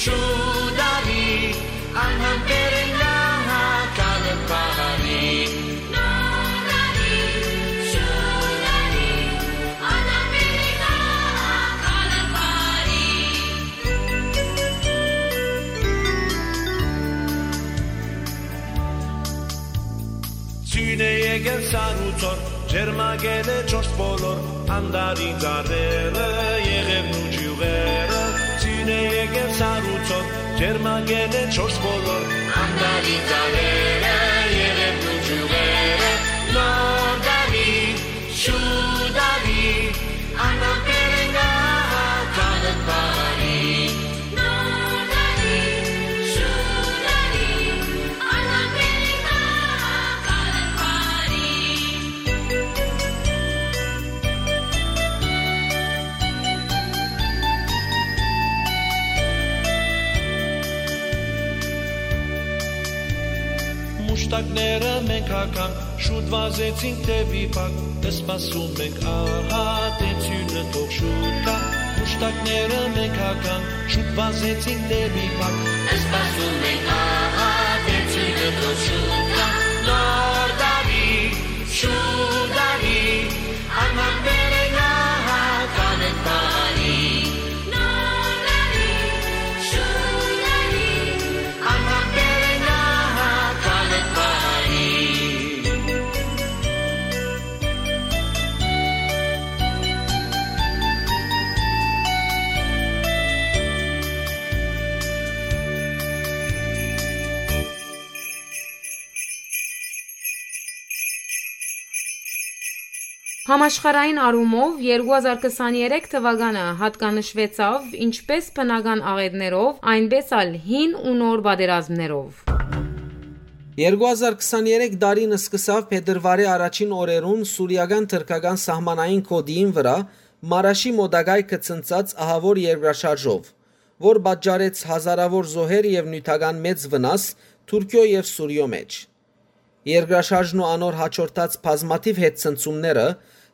շուտ արի, անհամբեր ենք, ահա, գալը բարի։ Նոր տարի, շուտ արի, անհամբեր ենք, ահա, գալը բարի։ Ձիւն է եկել սառուցոր, ջերմագել է չորս բոլոր, անտառի ծառերը, եղևն ու ճիւղերը։ Ձիւն է եկել սառուցոր, ջերմագել է չորս բոլոր, անտառի ծառերը, եղևն ու ճիւղերը։ Նոր տարի, շուտ արի, անհամբեր ենք, ահա, գալը բարի։ Նոր տարի, շուտ արի, անհամբեր ենք, ահա, գալը բարի։ Մուշտակները մենք հագանք, շուտ վազեցինք դեպի բակ, սպասում ենք, ահա, դեցիւնը թող շուտ գայ։ Մուշտակները մենք հագանք, շուտ վազեցինք դեպի բակ, սպասում ենք, ահա, դեցիւնը թող շուտ գայ։ Նոր տարի, շուտ արի, անհամբեր ենք, ահա, գալը բարի։ Նոր տարի, շուտ արի, անհամբեր ենք, ահա, գալը բարի։ Համաշխարհային առումով երկու հազար քսաներեք թուականը յատկանշուեցաւ ինչպէս բնական աղէտներով, այնպէս ալ հին ու նոր պատերազմներով։ Երկու հազար քսաներեք տարին սկսաւ փետրուարի առաջին օրերուն սուրիական-թրքական սահմանային գօտիին վրայ Մարաշի մօտակայքը ցնցած ահաւոր երկրաշարժով, որ պատճառեց հազարաւոր զոհեր եւ նիւթական մեծ վնաս Թուրքիոյ եւ Սուրիոյ մէջ։ Երկրաշարժն ու անոր յաջորդած բազմաթիւ հետցնցումները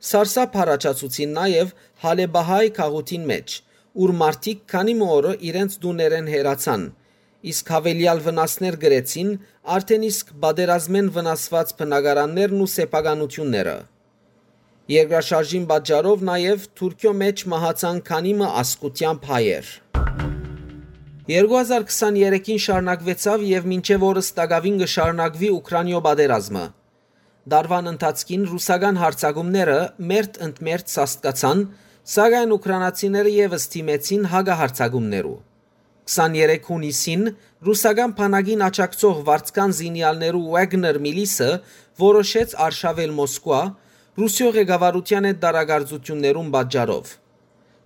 սարսափ առաջացուցին նաեւ Հալէպահայ քաղաքին մէջ, ուր մարդիկ քանի մը օրը իրենց տուներէն հեռացան, իսկ յաւելեալ վնասներ կրեցին արդէն իսկ պատերազմէն վնասուած բնակարաններն ու սեփականութիւնները։ Երկրաշարժին պատճառով նաեւ Թուրքիոյ մէջ մահացան քանի մը ազգութեամբ հայեր։ Երկու հազար քսաներեքին շարունակուեցաւ եւ մինչեւ օրս տակաւին կը շարունակուի Ուքրանիոյ պատերազմը։ Տարուան ընթացքին ռուսական յարձակումները մերթ ընդ մերթ սաստկացան, սակայն ուքրանացիները եւս դիմեցին հակահարձակումներու։ Քսաներեք յունիսին ռուսական բանակին աջակցող վարձկան զինեալներու Wagner միլիսը որոշեց արշաւել Մոսկուա՝ Ռուսիոյ ղեկավարութեան հետ տարակարծութիւններուն պատճառով։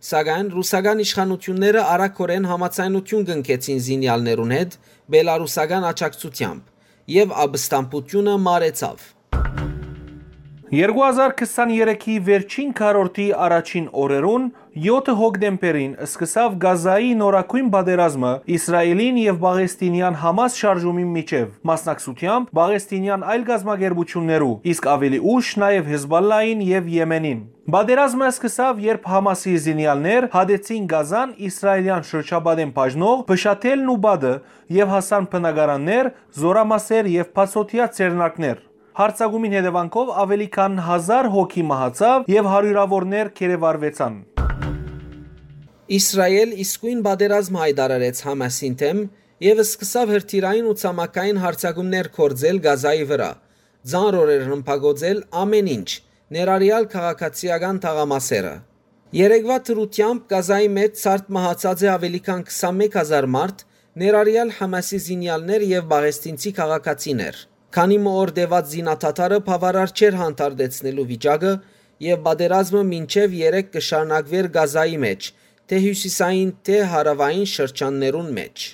Սակայն ռուսական իշխանութիւնները արագօրէն համաձայնութիւն կնքեցին զինեալներուն հետ բելառուսական աջակցութեամբ, եւ ապստամբութիւնը մարեցաւ։ Երկու հազար քսաներեքի վերջին քառորդի առաջին օրերուն, յոթը հոկտեմբերին, սկսաւ Գազայի նորագոյն պատերազմը Իսրայէլին եւ պաղեստինեան Համաս շարժումին միջեւ, մասնակցութեամբ պաղեստինեան այլ կազմակերպութիւններու, իսկ աւելի ուշ նաեւ Հեզբալլային եւ Եմենին։ Պատերազմը սկսաւ, երբ Համասի զինեալներ հատեցին Գազան իսրայէլեան շրջապատէն բաժնող փշաթելն ու պատը եւ հասան բնակարաններ, զօրամասեր եւ բացօթեայ ձեռնարկներ։ Յարձակումին հետեւանքով աւելի քան հազար հոգի մահացաւ եւ հարիւրաւորներ գերեվարուեցան։ Իսրայէլ իսկոյն պատերազմ յայտարարեց Համասին դէմ եւ սկսաւ հրթիռային ու ցամաքային յարձակումներ գործել Գազայի վրայ, ծանր օրեր ռմբակոծել ամէն ինչ, ներառեալ քաղաքացիական թաղամասերը։ Երեկվայ դրութեամբ Գազայի մէջ ցարդ մահացած է աւելի քան քսանմեկ հազար մարդ, ներառեալ Համասի զինեալներ եւ պաղեստինցի քաղաքացիներ։ Քանի մը օր տեւած զինադադարը բաւարար չէր հանդարտեցնելու վիճակը եւ պատերազմը մինչեւ երեկ կը շարունակուէր Գազայի մէջ, թէ հիւսիսային, թէ հարաւային շրջաններուն մէջ։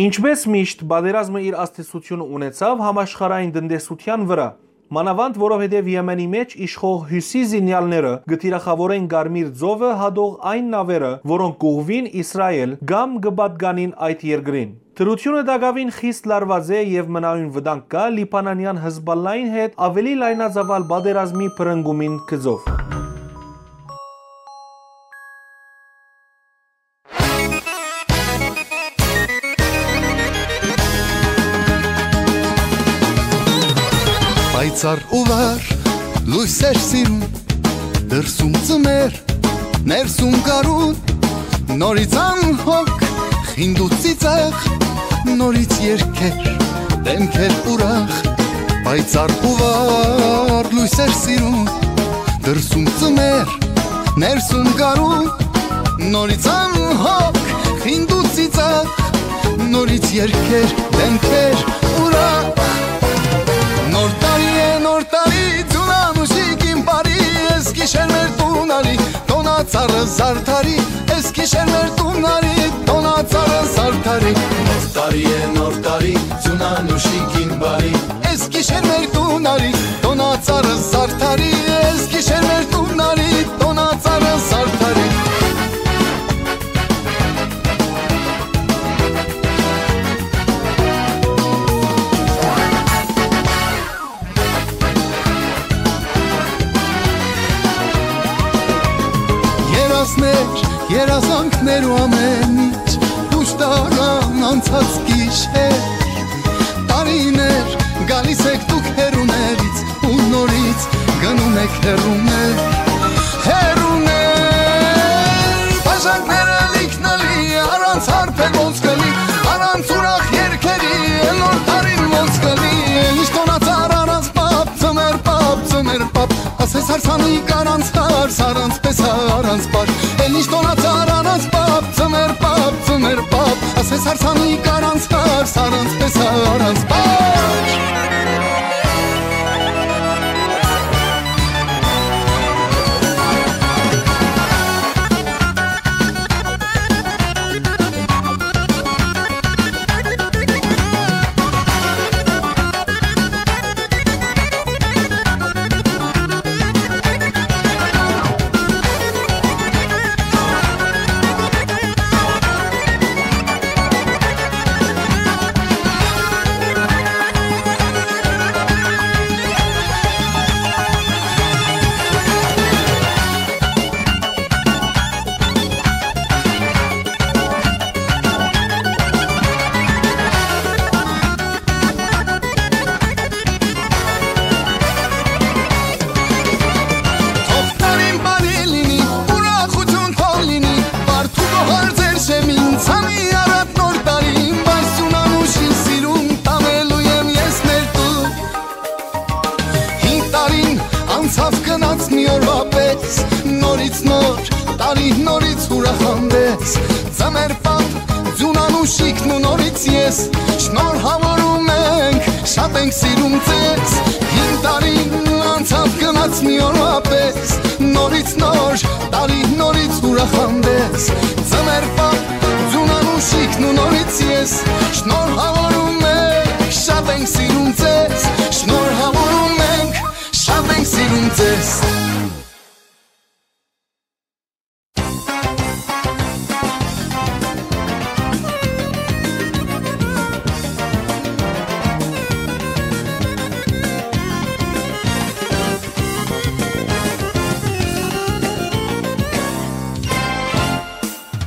Ինչպէս միշտ, պատերազմը իր ազդեցութիւնը ունեցաւ համաշխարհային տնտեսութեան վրայ։ Մանաւանդ որովհետեւ Եմենի մէջ իշխող հիւսի զինեալները կը թիրախաւորեն Կարմիր ծովը հատող այն նաւերը, որոնք կ'ուղղուին Իսրայէլ կամ կը պատկանին այդ երկրին։ Դրութիւնը տակաւին խիստ լարուած է եւ մնայուն վտանգ կայ Լիբանանեան Հըզպալլային հետ աւելի լայնածաւալ պատերազմի բռնկումին գծով։ Պայծառ ու վառ լոյս էր սիրուն, դրսում ծմեր, ներսում գարուն, նորից անհոգ, խինդ ու ծիծաղ, նորից երգեր, դեմքեր ուրախ, պայծառ ու վառ լոյս էր սիրուն, դրսում ծմեր, ներսում գարուն, նորից անհոգ, խինդ ու ծիծաղ, նորից երգեր, դեմքեր ուրախ։ Նոր տարի է, նոր տարի, ձուն անուշիկ իմ բարի, ես գիշեր մեր տուն արի, տոնա ծառը զարդարի, ես գիշեր մեր տուն արի, տոնա ծառը զարդարի։ Նոր տարի է, նոր տարի, ձուն անուշիկ իմ բարի, ես գիշեր մեր տուն արի, տոնա ծառը զարդարի, ես գիշեր մեր տուն արի, տոնա ծառը զարդարի։ Երազներ, երազանքներ ու ամեն ինչ, դուրս տարան անցած գիշեր, տարիներ, գալիս եք դուք հեռուներից ու նորից գնում եք հեռուներ, հեռուներ։ Բաժակները լիքնելի, առանց հարբեր ոնց կլի, առանց ուրախ երգերի, նոր տարին ոնց կլի, ինչ տոնացար առանց պապ, ծմեր պապ, ծմեր պապ, ասես հարսանիք առանց հարս, առանց պեսա, առանց պար, էլ ինչ տոնացար առանց պապ, ծմեր պապ, ծմեր պապ, ասես հարսանիք առանց հարս, առանց պեսա, առանց պար։ Թող տարին բարի լինի, ուրախություն թող լինի, բարդ ու գոհար ձեր շեմին, ցանի առատ նոր տարին, բայց սուն անուշին սիրուն տանելու եմ ես մեր տուն։ Հին տարին անցաւ գնաց մի օրվա պես, նորից նոր տարի, նորից ուրախ հանդես, ծմեր պապ, ձուն անուշիկն ու նորից ես, շնորհավորում ենք, շատ ենք սիրում ձեզ։ Հին տարին անցաւ գնաց մի օրվա պես, նորից նոր տարի, նորից ուրախ հանդես, ծմեր պապ, ձուն անուշիկն ու նորից ես, շնորհավորում ենք, շատ ենք սիրում ձեզ, շնորհավորում ենք, շատ ենք սիրում ձեզ։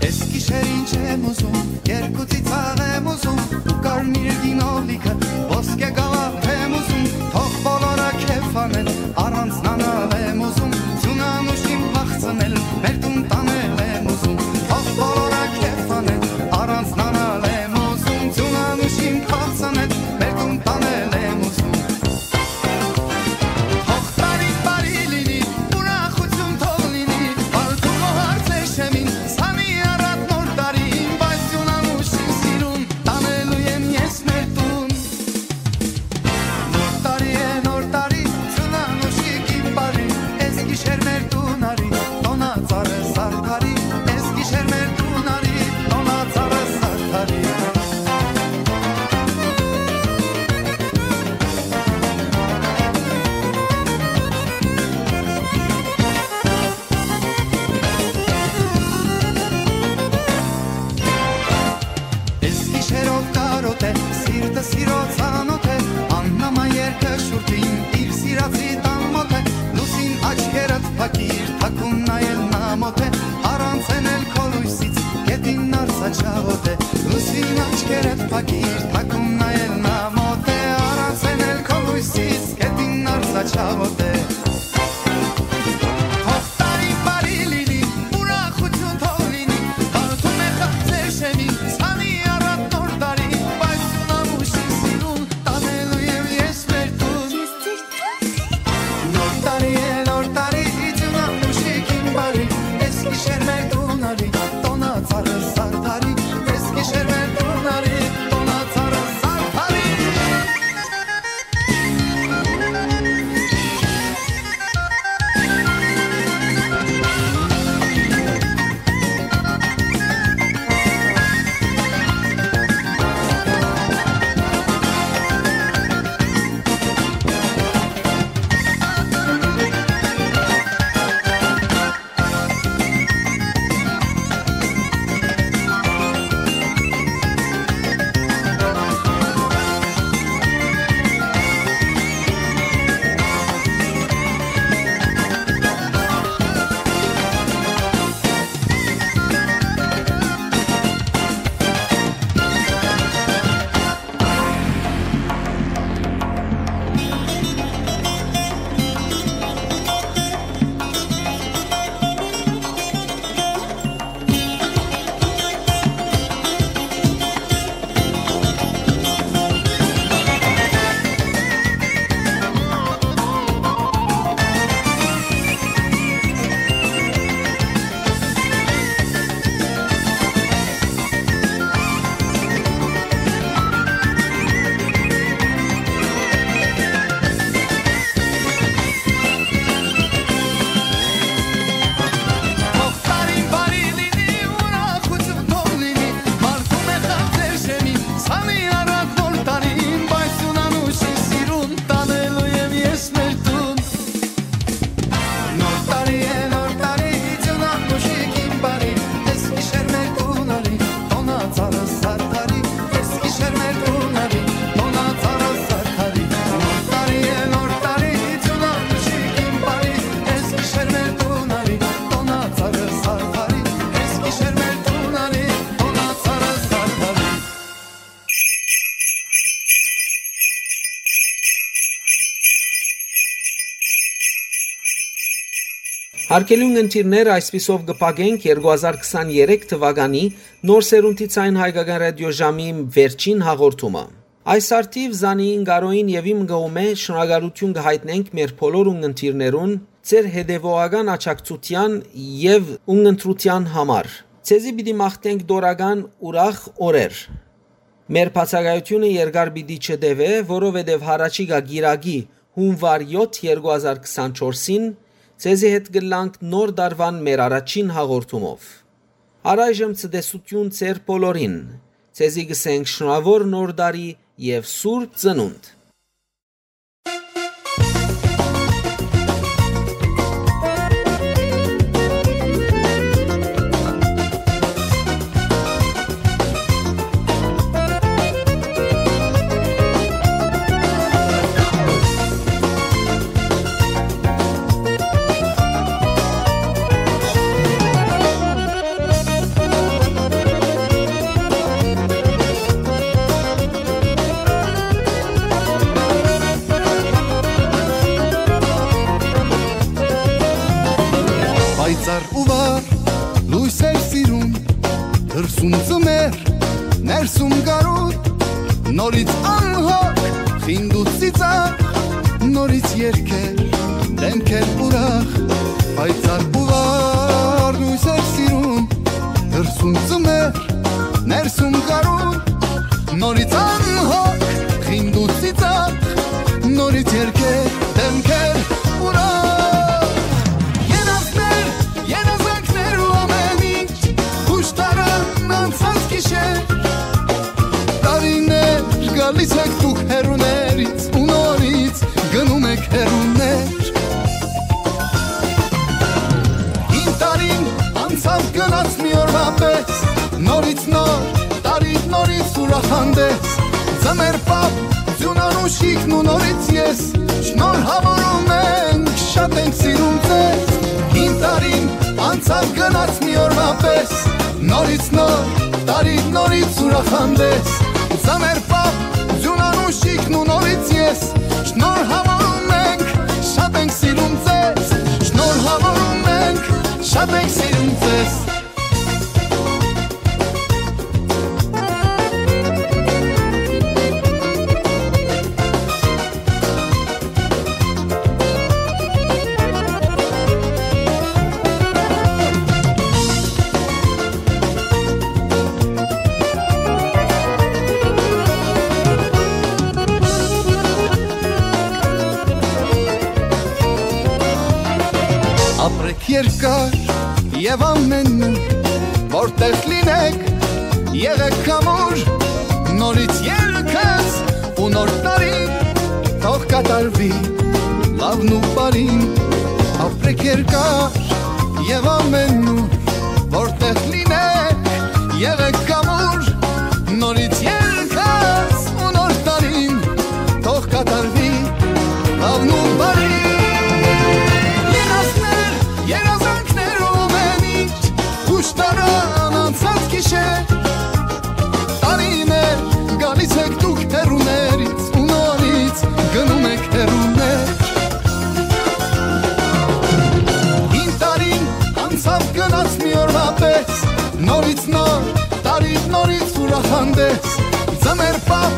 Էս գիշեր ինչ եմ ուզում, երկու ծիծաղ եմ ուզում, ու կարմիր գինովլիքը, ոսկե գավաթ եմ ուզում, թող բոլորը քեֆ անեն, առանձնանալ եմ ուզում, ձուն անուշին փախցնել, մեր տուն տանել եմ ուզում, թող բոլորը քեֆ անեն, առանձնանալ եմ ուզում, ձուն անուշին փախցնել, մեր տուն տանել եմ ուզում։ Թող տարին բարի լինի, ուրախություն թող լինի, բարդ ու գոհար ձեր շեմին, սանի առատ նոր տարին, բայց ձուն անուշին սիրուն Չաղոտ է, լուսին աչքերդ փակիր, թաքուն նայել նա մոտ է, առանց էնել քո լույսից, գետին արծա չաղոտ է։ Թող տարին բարի լինի, ուրախություն թող լինի, հարթում է խաղ ձեր շեմին, սանի առատ նոր տարի, բայց սունանուշի սիրուն տանելու եմ ես մեր տուն։ Նոր տարի է, նոր տարի, իջունան մուշիկին բարի, ես գիշեր մեր տուն արի, տոնա ծառը սարդարի, ես գիշեր մեր տուն արի, տոնա ծառը սարդարի։ Թող տարին բարի լինի, ուրախություն թող լինի, մարդու մեղա ձեր շեմին, սանի առատ նոր տարին, բայց սունանուշի սիրուն տանելու եմ ես մեր տուն։ Նոր տարի է, նոր տարի, իջունան մուշիկին բարի, ես գիշեր մեր տուն արի, տոնա ծառը սարդարի, ես գիշեր մեր տուն արի, տոնա ծառը սարդարի, նոր տարի է, նոր տարի, իջունան մուշիկին բարի, ես գիշեր մեր տուն արի, տոնա ծառը սարդարի, ես գիշեր մեր տուն արի, տոնա ծառը սարդարի։ Հարգելի ունգընտիրներ, այսպիսով կը փակենք երկու հազար քսաներեք թվականի նոր սերունդի Ձայն Հայկական Ռադիոժամի վերջին հաղորդումը։ Այս արդիւ Զանիին Կարոյին եւ իմ կողմէ շնորհակալութիւն կը յայտնենք մեր բոլոր ունգընտիրներուն, ձեր հետեւողական աջակցութեան եւ ունգընտրութեան համար։ Ձեզի պիտի մաղթենք դորական ուրախ օրեր։ Մեր բացակայութիւնը երկար պիտի չտեւէ, որովհետեւ յառաջիկայ կիրակի, հունուար յոթ, երկու հազար քսանչորսին, ձեզի հետ կ'ըլլանք նոր տարուան մեր առաջին հաղորդումով։ Առայժմ ցտեսութիւն ձեր բոլորին։ Ձեզի կ'ըսենք շնորհաւոր նոր տարի եւ սուրբ ծնունդ։ Պայծառ ու վառ լոյսեր սիրուն, դրսում ծմեր, ներսում գարուն, նորից անհոգ, խինդ ու ծիծաղ, նորից երգեր, դեմքեր ուրախ, պայծառ ու վառ լոյսեր սիրուն, դրսում ծմեր, ներսում գարուն, նորից անհոգ, խինդ ու ծիծաղ, նորից երգեր, դեմքեր ուրախ։ Երազներ, երազանքներ ու ամեն ինչ, խուշ տարան անցած գիշեր, տարիներ գալիս եք դուք հեռուներից ու նորից գնում եք հեռուներ։ Հին տարին անցավ գնաց մի օրվա պես, նորից նոր տարի, նորից ուրախ հանդես, ձմեր պապ, ձյունան ու շիքն ու նորից ես, շնորհավորում ենք, շատ ենք սիրում ձեզ։ Հին տարին անցավ գնաց մի օրվա պես, նորից նոր Տարի նորից ուրախ հանդես, ծանր պապ, ձուն անուշիկն ու նորից ես, շնորհավորում ենք, շատ ենք սիրում ձեզ, շնորհավորում ենք, շատ ենք սիրում ձեզ։ Ապրեք երկար եւ ամենուր, որտեղ լինեք, եղեք ամուր, նորից երկս ու նոր տարին թող կատարվի լավն ու բարին, ապրեք երկար եւ ամենուր, որտեղ լինեք, եղեք ամուր, նորից երկս ու նոր տարին թող կատարվի լավն ու բարին։ Երազներ, երազանքներ ու ամեն ինչ, ուշ տարան անցած գիշեր, տարիներ, գալիս եք դուք հեռուներից ու նորից գնում եք հեռուներ։ Հին տարին անցաւ գնաց մի օրվա պես, նորից նոր, տարի նորից ուրախ հանդես, ծմեր պապ,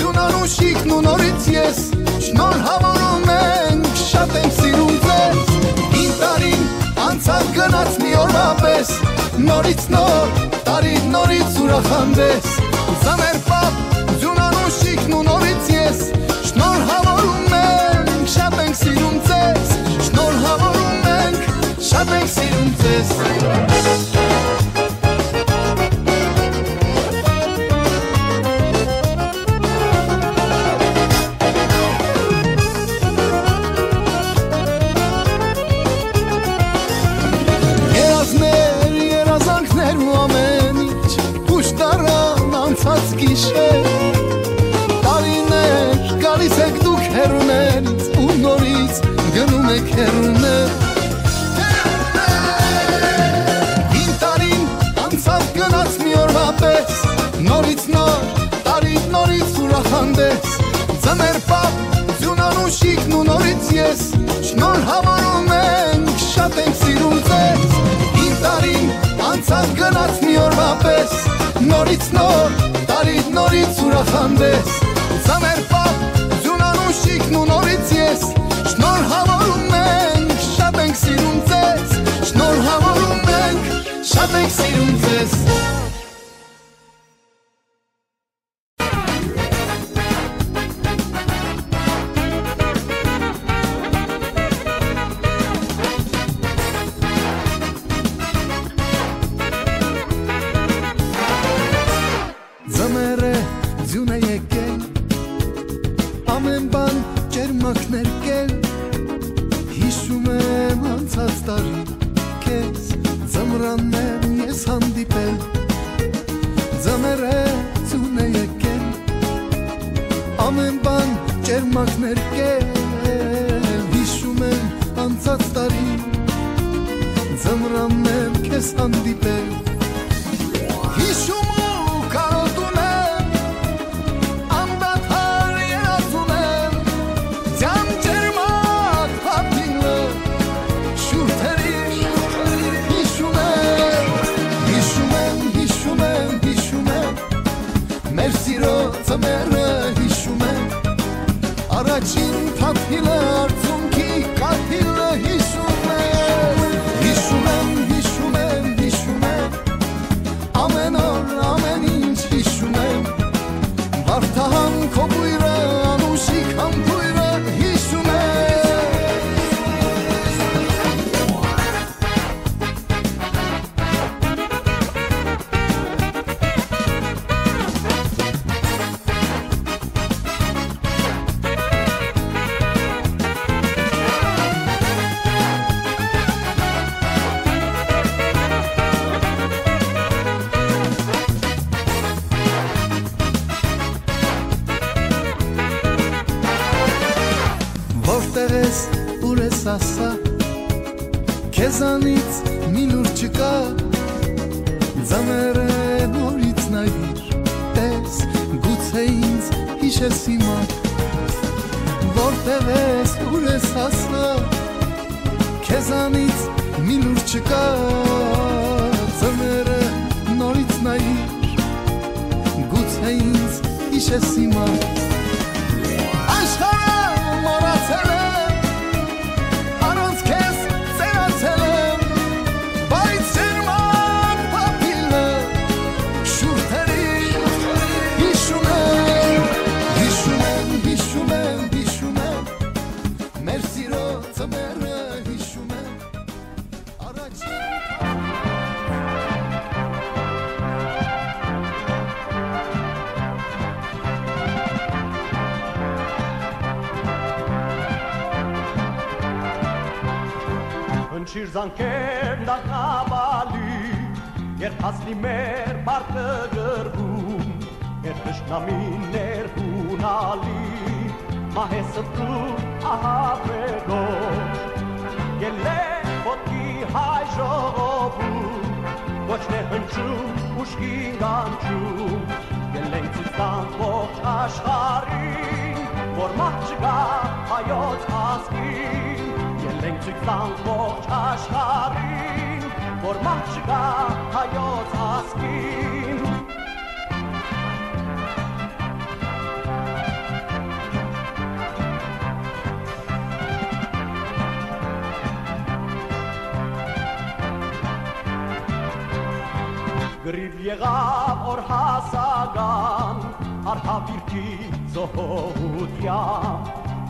ձուն անուշիկն ու նորից ես, շնորհավորում ենք, շատ ենք սիրում ձեզ։ Հին տարին անցաւ գնաց մի օրվա պես, նորից նոր, տարի նորից ուրախ հանդես, ծմեր պապ, ձուն անուշիկն ու նորից ես, շնորհավորում ենք, շատ ենք սիրում ձեզ, շնորհավորում ենք, շատ ենք սիրում ձեզ։ Երազներ, երազանքներ ու ամեն ինչ, ուշ տարան անցած գիշեր, տարիներ, գալիս եք դուք հեռուներից ու նորից գնում եք հեռուներ։ Հին տարին անցաւ գնաց մի օրվա պես, նորից նոր, տարի նորից ուրախ հանդես, ծմեր պապ, ձուն անուշիկն ու նորից ես, շնորհավորում ենք, շատ ենք սիրում ձեզ։ Հին տարին անցաւ գնաց մի օրվա պես, նորից նոր, տարի նորից ուրախ հանդես, ծմեր պապ, ձուն անուշիկն ու նորից ես, շնորհավորում ենք, շատ ենք սիրում ձեզ, շնորհավորում ենք, շատ ենք սիրում ձեզ։ Ձմեռը ձյուն է եկել, ամեն բան ճերմակներ կել, հիշում եմ անցած տարի քեզ, ձմրաններ ես հանդիպել, ձմեռը ձյուն է եկել, ամեն բան ճերմակներ կել, հիշում եմ անցած տարի, ձմրաններ քեզ հանդիպել, հիշում ու կարոտում եմ, անդադար երազում եմ, ձյան ճերմակ փափինը շուրթերի հիշում եմ, հիշում եմ, հիշում եմ, հիշում եմ, մեր սիրո ձմեռը հիշում եմ, առաջին փափինը, արցունքի կաթիլը հիշում եմ, հիշում եմ, հիշում եմ, հիշում եմ, ամեն օր, ամեն ինչ հիշում եմ, Վարդահան քո բոյրը, անուշիկ համբոյրը հիշում եմ։ Որտեղ ես, ուր ես, ասա, քեզանից մի լուր չկա, ձմեռը նորից նայիր, տես, գուցե ինձ յիշես հիմա, որտեղ ես, ուր ես, ասա, քեզանից մի լուր չկա, ձմեռը նորից նայիր, գուցե ինձ յիշես հիմա։ Աշխարհը մոռացել եմ, առանց քեզ ծերացել եմ, բայց ջերմակ փափիլը շուրթերին հիշում եմ, հիշում եմ, հիշում եմ, հիշում եմ, մեր սիրո ձմեռը հիշում եմ, առաջին Հնչիր զանգեր դարբնապալի, երբ հասնի մեր պարտը կռվում, երբ թշնամիներ յունալի, մահեսը դու ահաբեկող, ելլե ոտքի հայ ժողովուրդ, կոչն է հնչում, ուշքին կանչում, ելենք ցույց տանք ողջ աշխարհին, որ մահ չկա հայոց ազգին, ելենք ցույց տանք ողջ աշխարհին, որ մահ չկա հայոց ազգին։ Կռիվ եղաւ օր հասական, արհավիրքի զոհողութեան,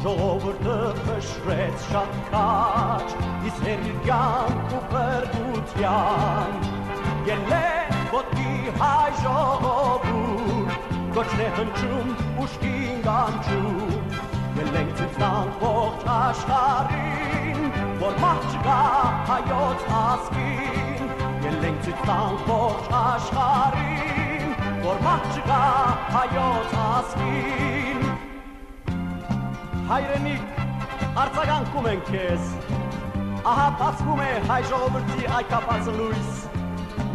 ժողովուրդը փշրեց շատ քաջ, իսկ հեռի կյանք ու փրկութեան։ Ելլե ոտքի հայ ժողովուրդ, կոչն է հնչում, ուշքին կանչում, ելենք ցույց տանք ողջ աշխարհին, որ մահ չկա հայոց ազգին, ելենք ցույց տանք ողջ աշխարհին, որ մահ չկա հայոց ազգին։ Հայրենիք, արձագանքում ենք քեզ։ Ահա բացվում է հայ ժողովրդի այգաբացը լոյս։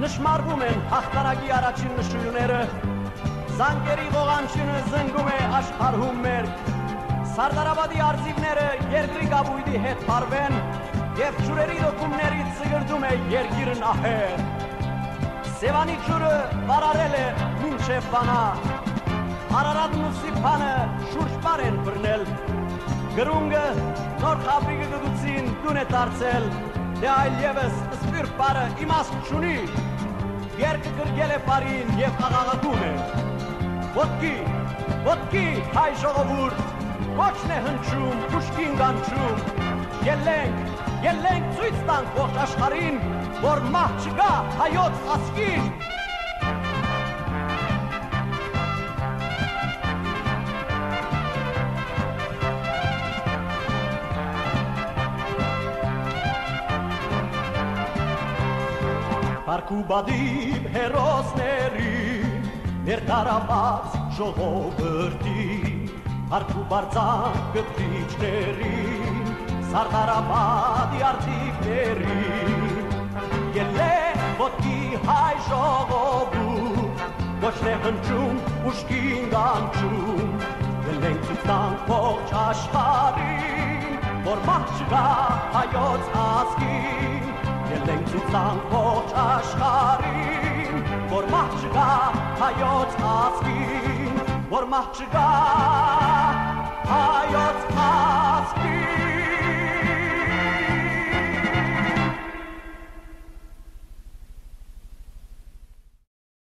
Նշմարվում են հաղթանակի առաջին նշոյլները։ Զանգերի ղողանջինը զնգում է աշխարհում մերկ։ Սարդարապատի արծիվները երկրի կապոյտի հետ պարուեն եւ ջուրերի լոկումների ծգրտում է երկիրն ահեղ։ Սեւանի ջուրը վարարել է մինչեւ Վանա։ Արարատն ու Սիփանը շուրջպար են բռնել։ Կրունկը նոր Խաբրիկը գտուցին տուն է դարձել, դե այլեւս սփիռ պարը իմաստ չունի։ Երկը գրկել է պարին եւ աղաղակում է. «Ոտքի, ոտքի, հայ ժողովուրդ, կոչն է հնչում, ուշքին կանչում։ Ելենք, ելենք ցույց տանք ողջ աշխարհին, որ մահ չկա հայոց ազգին»։ Փառք ու պատիվ հերոսներին, մեր տարապած ժողովրդին, փառք ու պարծանք կտրիչներին, Սարդարապատի արծիվներին։ Ելլե ոտքի հայ ժողովուրդ, կոչն է հնչում, ուշքին կանչում, ելենք ցույց տանք ողջ աշխարհին, որ մահ չկա հայոց ազգին, ելենք ցույց տանք ողջ աշխարհին, որ մահ չկա հայոց ազգին, որ մահ չկա հայոց